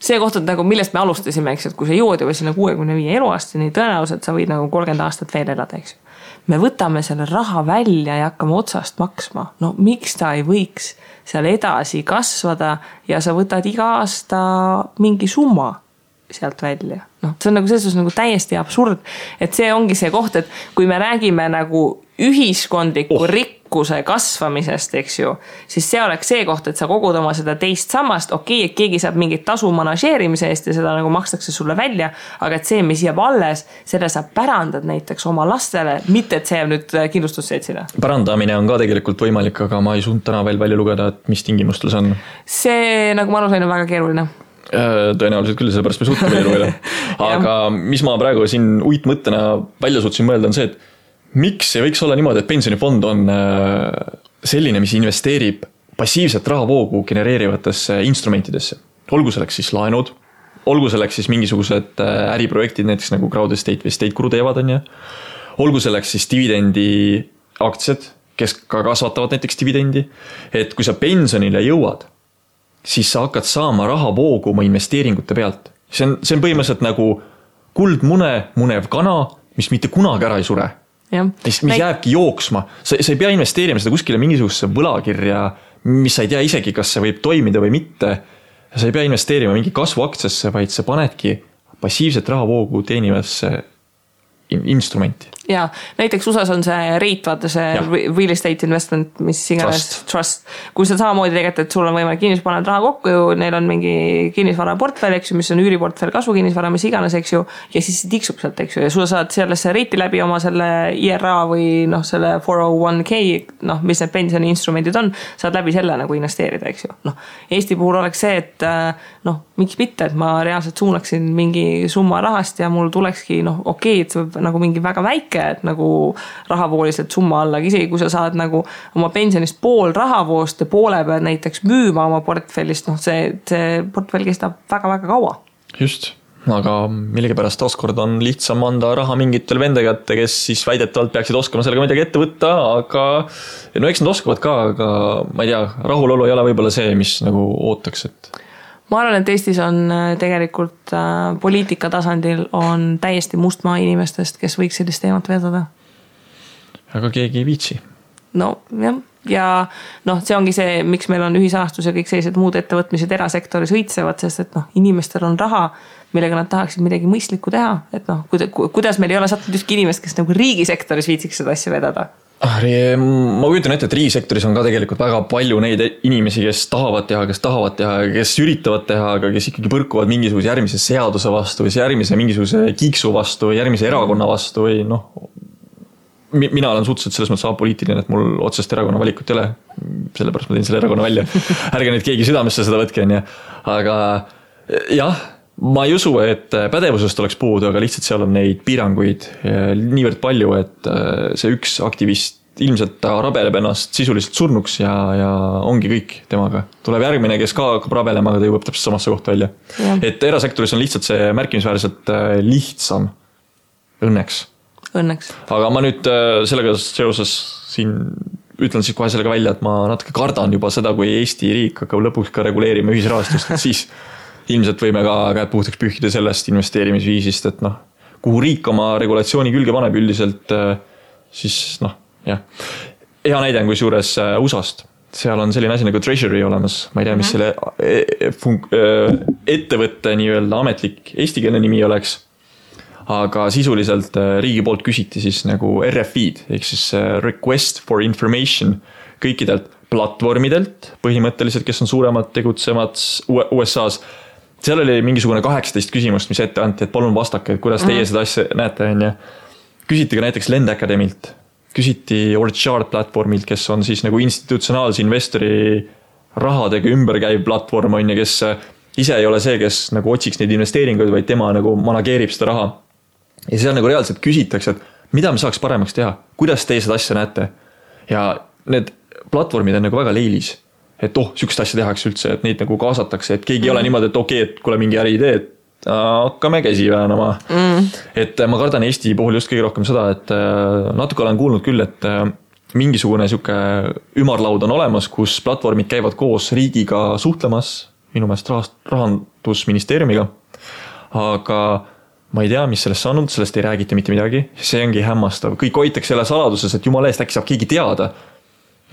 See koht, et nagu millest me alustasime, eks, et kui sa jõuad juba sinna 65 eluaastani, tõenäoliselt sa võid nagu 30 aastat veel elada, eks. Me võtame selle raha välja ja hakkame otsast maksma. No miks ta ei võiks seal edasi kasvada ja sa võtad iga aasta mingi summa sealt välja. No, see on nagu selles nagu täiesti absurd, et see ongi see koht, et kui me räägime nagu ühiskondliku rikkuse kasvamisest, eks ju, siis see oleks see koht, et sa kogud oma seda teist sammast, okei, et keegi saab mingit tasu manažeerimise eest ja seda nagu makstakse sulle välja, aga et see, mis jääb alles, selle sa pärandad näiteks oma lastele, mitte et see jääb nüüd kindlustusseltsile. Pärandamine on ka tegelikult võimalik, aga ma ei suund täna veel välja lugeda, et mis tingimustel see on. See, nagu ma aru sain, on väga keeruline. Tõenäoliselt küll, sellepärast me suutame veel lugeda. Aga mis ma praegu siin uitmõttena välja suutsin mõelda on see, et miks ei võiks olla niimoodi, et pensionifond on selline, mis investeerib passiivset rahavoogu genereerivatesse instrumentidesse. Olgu selleks siis laenud, olgu selleks siis mingisugused äriprojektid, näiteks nagu crowd estate või estate guru teevad on ja. Olgu selleks siis dividendi aktsiad, kes ka kasvatavad näiteks dividendi. Et kui sa pensionile jõuad, siis sa hakkad saama rahavoogu oma investeeringute pealt. See on põhimõtteliselt nagu kuldmune, munev kana, mis mitte kunagi ära ei sure. Mis jääbki jooksma. Sa ei pea investeerima seda kuskile mingisugusesse võlakirja, mis sa ei tea isegi, kas see võib toimida või mitte. Sa ei pea investeerima mingi kasvuaktsiasse, vaid sa panedki passiivset rahavoogu teenivasse instrumenti. ja näiteks USAs on see REIT, vaata see real estate investment, mis iganes trust. Kui sa samamoodi tegelikult, et sul on võimalik kinnisvara raha kokku ju, neil on mingi kinnisvara portfell, eks ju, mis on üüriportfell, kasvu kinnisvara, mis iganes, eks ju, ja siis tiksub sealt, eks ju, ja sulle saad sellesse REIT-i läbi oma selle IRA või selle 401k, mis need pensioniinstrumendid on, saad läbi selle nagu investeerida, eks ju. Eesti puhul oleks see, et miks mitte, et ma reaalselt suunaksin mingi summa rahast ja mul tulekski, okei, et see võib nagu mingi väga väike, et nagu rahavooliselt summa alla, isegi kui sa saad nagu oma pensionist pool rahavoost ja poole peal näiteks müüma oma portfellist, see portfell kestab väga-väga kaua. Just, aga millegipärast taaskord on lihtsam anda raha mingitel vende kätte, kes siis väidetavalt peaksid oskama sellega midagi ette võtta, aga eks nad oskavad ka, aga ma ei tea, rahulolu ei ole võib-olla see, mis nagu ootaks, et ma arvan, et Eestis on tegelikult poliitika tasandil on täiesti mustmaa inimestest, kes võiks sellist teemat vedada. Aga keegi ei viitsi. No jah, ja see ongi see, miks meil on ühisahastus ja kõik sellised muud ettevõtmised erasektoris õitsevad, sest et inimestel on raha, millega nad tahaksid midagi mõistlikku teha, et kuidas meil ei ole sattunud ükski inimest, kes nagu riigisektoris viitsiks seda asja vedada. Ma kujutan ette, et riigisektoris on ka tegelikult väga palju neid inimesi, kes tahavad teha, kes üritavad teha, aga kes ikkagi põrkuvad mingisuguse järgmise seaduse vastu või järgmise mingisuguse kiiksu vastu või järgmise erakonna vastu või mina olen suhteliselt selles mõttes apoliitiline, et mul otsest erakonna valikut ei ole, sellepärast ma teen selle erakonna välja. Ärge nüüd keegi südamesse seda võtke, aga jah, ma ei usu, et pädevusest oleks puudu, aga lihtsalt seal on neid piiranguid niivõrd palju, et see üks aktivist ilmselt ta rabeleb ennast sisuliselt surnuks ja ongi kõik temaga. Tuleb järgmine, kes ka hakkab rabelema, aga ta jõuab täpselt samasse kohta välja. Ja. Et erasektoris on lihtsalt see märkimisväärselt lihtsam. Õnneks. Aga ma nüüd sellega seoses siin ütlen siis kohe sellega välja, et ma natuke kardan juba seda, kui Eesti riik hakkab lõpuks ka reguleerima ühisrahastust, et siis ilmselt võime ka käed puhtaks pühkida sellest investeerimisviisist, et kuhu riik oma regulatsiooni külge paneb üldiselt, siis jah. Hea näide on kui suures USAst. Seal on selline asi nagu Treasury olemas. Ma ei tea, mis selle ettevõtte nii-öelda ametlik eestikeelne nimi oleks. Aga sisuliselt riigi poolt küsiti siis nagu RFI-d, ehk siis Request for Information kõikidelt platvormidelt, põhimõtteliselt, kes on suuremad tegutsemad USA-s. Seal oli mingisugune 18 küsimust, mis ette anti, et palun vastake, et kuidas teie seda asja näete. Küsiti ka näiteks Lend Academilt, küsiti Orchard platvormilt, kes on siis nagu institutsionaalse investori rahadega ümberkäiv platvorm, kes ise ei ole see, kes nagu otsiks neid investeeringuid, vaid tema nagu manageerib seda raha. Ja seal nagu reaalselt küsitakse, et mida me saaks paremaks teha, kuidas teie seda asja näete. Ja need platvormid on nagu väga leilis, et sükest asja tehakse üldse, et neid nagu kaasatakse, et keegi ei ole niimoodi, et okei, et kuule mingi äriidee, et hakkame käsi väänama. Et ma kardan Eesti puhul just kõige rohkem seda, et natuke olen kuulnud küll, et mingisugune siuke ümarlaud on olemas, kus platvormid käivad koos riigiga suhtlemas, minu meelest rahandusministeeriumiga, aga ma ei tea, mis sellest saanud, sellest ei räägita mitte midagi, see ongi hämmastav. Kõik hoitakse selle saladuses, et jumala eest äkki saab keegi teada.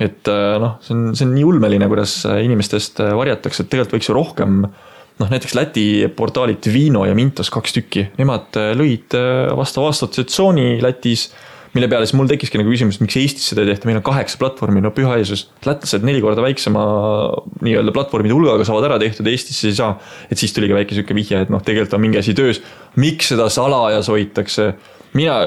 Et see on nii ulmeline, kuidas inimestest varjatakse, et tegelikult võiks ju rohkem, näiteks Läti portaalit Vino ja Mintos 2 tükki. Nemad lõid vastava assotsiatsiooni Lätis, mille peale siis mul tekiski nagu küsimus, miks Eestis seda ei tehta, meil on 8 platvormi, püha Jeesus. Lätlased 4 korda väiksema nii-öelda platvormide hulgaga saavad ära tehtud, Eestis ei saa. Et siis tuli ka väike süke vihje, et tegelikult on mingi asi töös. Miks seda salajas hoitakse? Mina,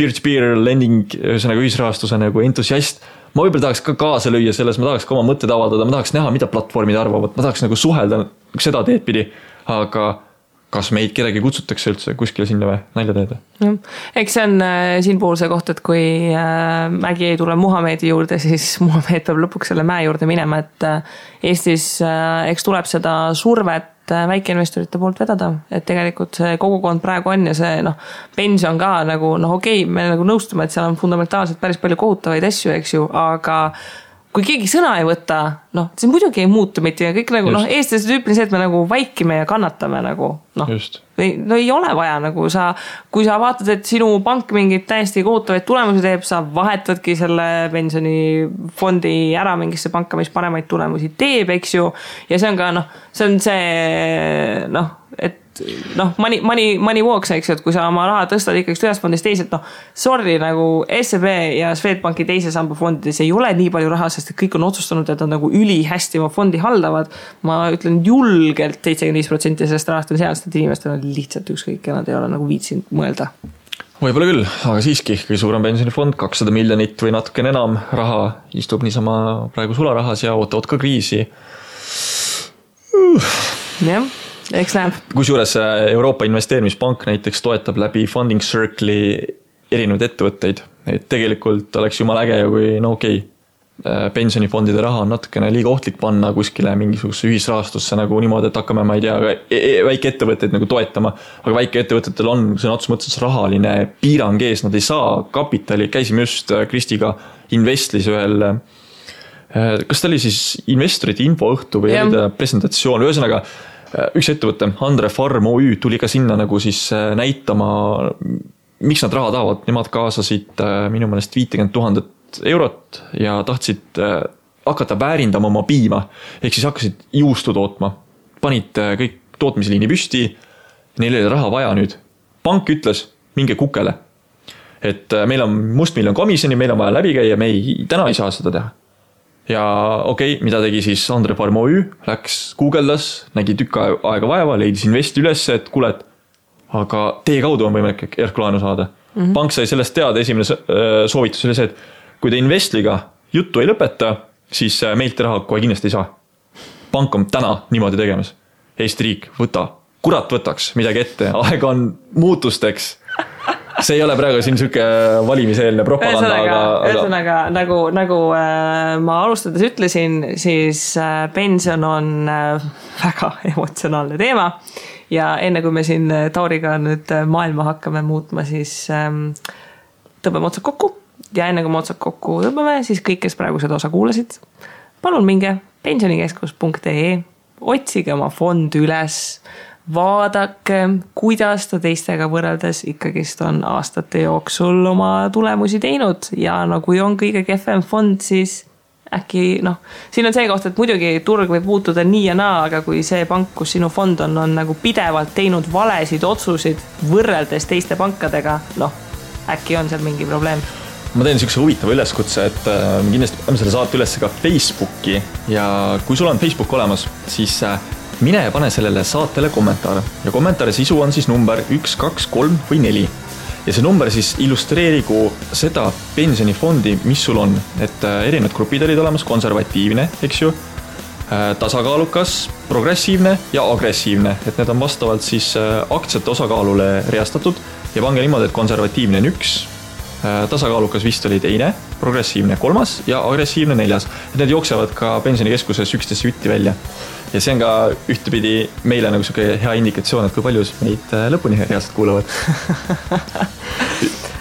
peer-to-peer lending, ühesõnaga ühisrahastuse nagu entusiast, ma võib-olla tahaks ka kaasa lüüa selles, ma tahaks ka oma mõtted avaldada, ma tahaks näha, mida platvormid arvavad, ma tahaks nagu suhelda seda teed pidi, aga kas meid kedagi kutsutakse üldse kuskile sinna või nalja teeda? Eks see on siin puhul see koht, et kui mägi ei tule Muhamedi juurde, siis Muhamed peab lõpuks selle mäe juurde minema, et Eestis eks tuleb seda survet väikeinvestorite poolt vedada, et tegelikult see kogukond praegu on ja see pension ka nagu okei, me nagu nõustume, et seal on fundamentaalselt päris palju kohutavaid asju, eks ju, aga kui keegi sõna ei võta, see muidugi ei muutu mitte ja kõik nagu, eestlased tüüpili see, et me nagu vaikime ja kannatame nagu, ei ole vaja nagu kui sa vaatad, et sinu pank mingid täiesti kohutavaid tulemusi teeb, sa vahetadki selle pensionifondi ära mingisse panka, mis paremaid tulemusi teeb, eks ju, ja see on ka, see on see, et money walks, eks ju, et kui sa oma raha tõstad ikkagi ühest fondist teiselt, sorry, nagu SEB ja Swedbanki teise samba fondides ei ole nii palju raha, sest et kõik on otsustanud, et nad nagu ülihästi oma fondi haldavad. Ma ütlen julgelt 75% sellest rahast on sealst, et inimestel on lihtsalt ükskõik ja nad ei ole nagu viitsinud mõelda. Võib-olla küll, aga siiski kõige suurem pensionifond, 200 miljonit või natuke enam raha istub niisama praegu sularahas ja ootavad ka kriisi. Jah, eks näeb. Kusjuures Euroopa Investeerimispank näiteks toetab läbi Funding Circle'i erinevaid ettevõtteid. Et tegelikult oleks jumal äge ja kui pensionifondide raha on natukene liiga ohtlik panna kuskile mingisuguse ühisrahastusse nagu niimoodi, et hakkame, ma ei tea, väike ettevõtteid nagu toetama, aga väike ettevõtetel on sõna otseses mõttes rahaline piirang ees, nad ei saa kapitali, käisime just Kristiga Investlis ühel, kas ta oli siis investorite infoõhtu või oli ta presentatsioon, ühesõnaga üks ettevõte, Andre Farm OÜ tuli ka sinna nagu siis näitama, miks nad raha tahavad, nemad kaasasid minu meelest 50 000 eurot ja tahtsid hakata väärindama oma piima, ehk siis hakkasid juustu tootma, panid kõik tootmisliini püsti, neil oli raha vaja nüüd. Pank ütles, minge kukele, et meil on mustmiljon komisjoni, meil on vaja läbi käia, me täna ei saa seda teha. Ja mida tegi siis Andre Farm OÜ, läks guugeldas, nägi tükk aega vaeva, leidis investi üles, et kuule, aga teie kaudu on võimalik järklaenu saada. Pank sai sellest teada, esimene soovitus oli see, et kui te Investliga juttu ei lõpeta, siis meilt raha kohe kindlasti ei saa. Pank on täna niimoodi tegemas. Eesti riik, kurat võtaks midagi ette, aeg on muutusteks. See ei ole praegu siin selline valimiseelne propaganda, ühesõnaga, nagu ma alustades ütlesin, siis pension on väga emotsionaalne teema ja enne kui me siin Tauriga nüüd maailma hakkame muutma, siis tõmbame otsad kokku. Ja enne kui me otsad kokku tõmbame, siis kõik, kes praegu seda osa kuulasid, palun minge pensionikeskus.ee, otsige oma fond üles, vaadake, kuidas ta teistega võrreldes ikkagist on aastate jooksul oma tulemusi teinud ja kui on kõige kehvem fond, siis äkki, siin on see koht, et muidugi turg võib muutuda nii ja naa, aga kui see pank, kus sinu fond on nagu pidevalt teinud valesid otsusid võrreldes teiste pankadega, äkki on seal mingi probleem. Ma teen niisuguse huvitava üleskutse, et kindlasti paneme selle saate üles ka Facebooki ja kui sul on Facebook olemas, siis mine ja pane sellele saatele kommentaar ja kommentaari sisu on siis number 1, 2, 3 või 4 ja see number siis illustreerigu seda pensionifondi, mis sul on, et erinevad grupid olid olemas, konservatiivne, eks ju, tasakaalukas, progressiivne ja agressiivne, et need on vastavalt siis aktsiate osakaalule reastatud ja pange niimoodi, et konservatiivne on 1, tasakaalukas vist oli 2, progressiivne 3 ja agressiivne 4. Need jooksevad ka pensionikeskuses 11 jutti välja. Ja see on ka ühtepidi meile nagu selline hea indikatsioon, et kui palju meid lõpuni reaalselt kuulavad.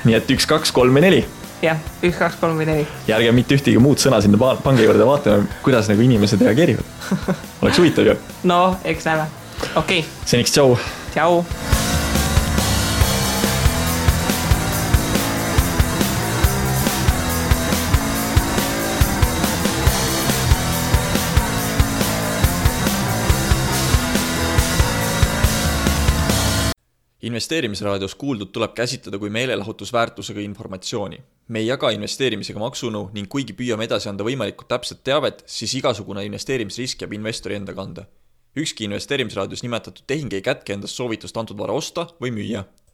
Nii et 1, 2, 3 või 4. Jah, 1, 2, 3 või 4. Ja ärge mitte ühtegi muud sõna sinna pange juurde vaatame, kuidas nagu inimesed reageerivad. Oleks huvitav ju. No, eks näeme. Okei. Seniks tšau. Tšau. Investeerimisraadios kuuldud tuleb käsitleda kui meelelahutusväärtusega informatsiooni. Me ei jaga investeerimisega maksunu ning kuigi püüame edasi anda võimalikult täpset teavet, siis igasugune investeerimisrisk jääb investori enda kanda. Ükski investeerimisraadios nimetatud tehing ei kätke endast soovitust antud vara osta või müüa.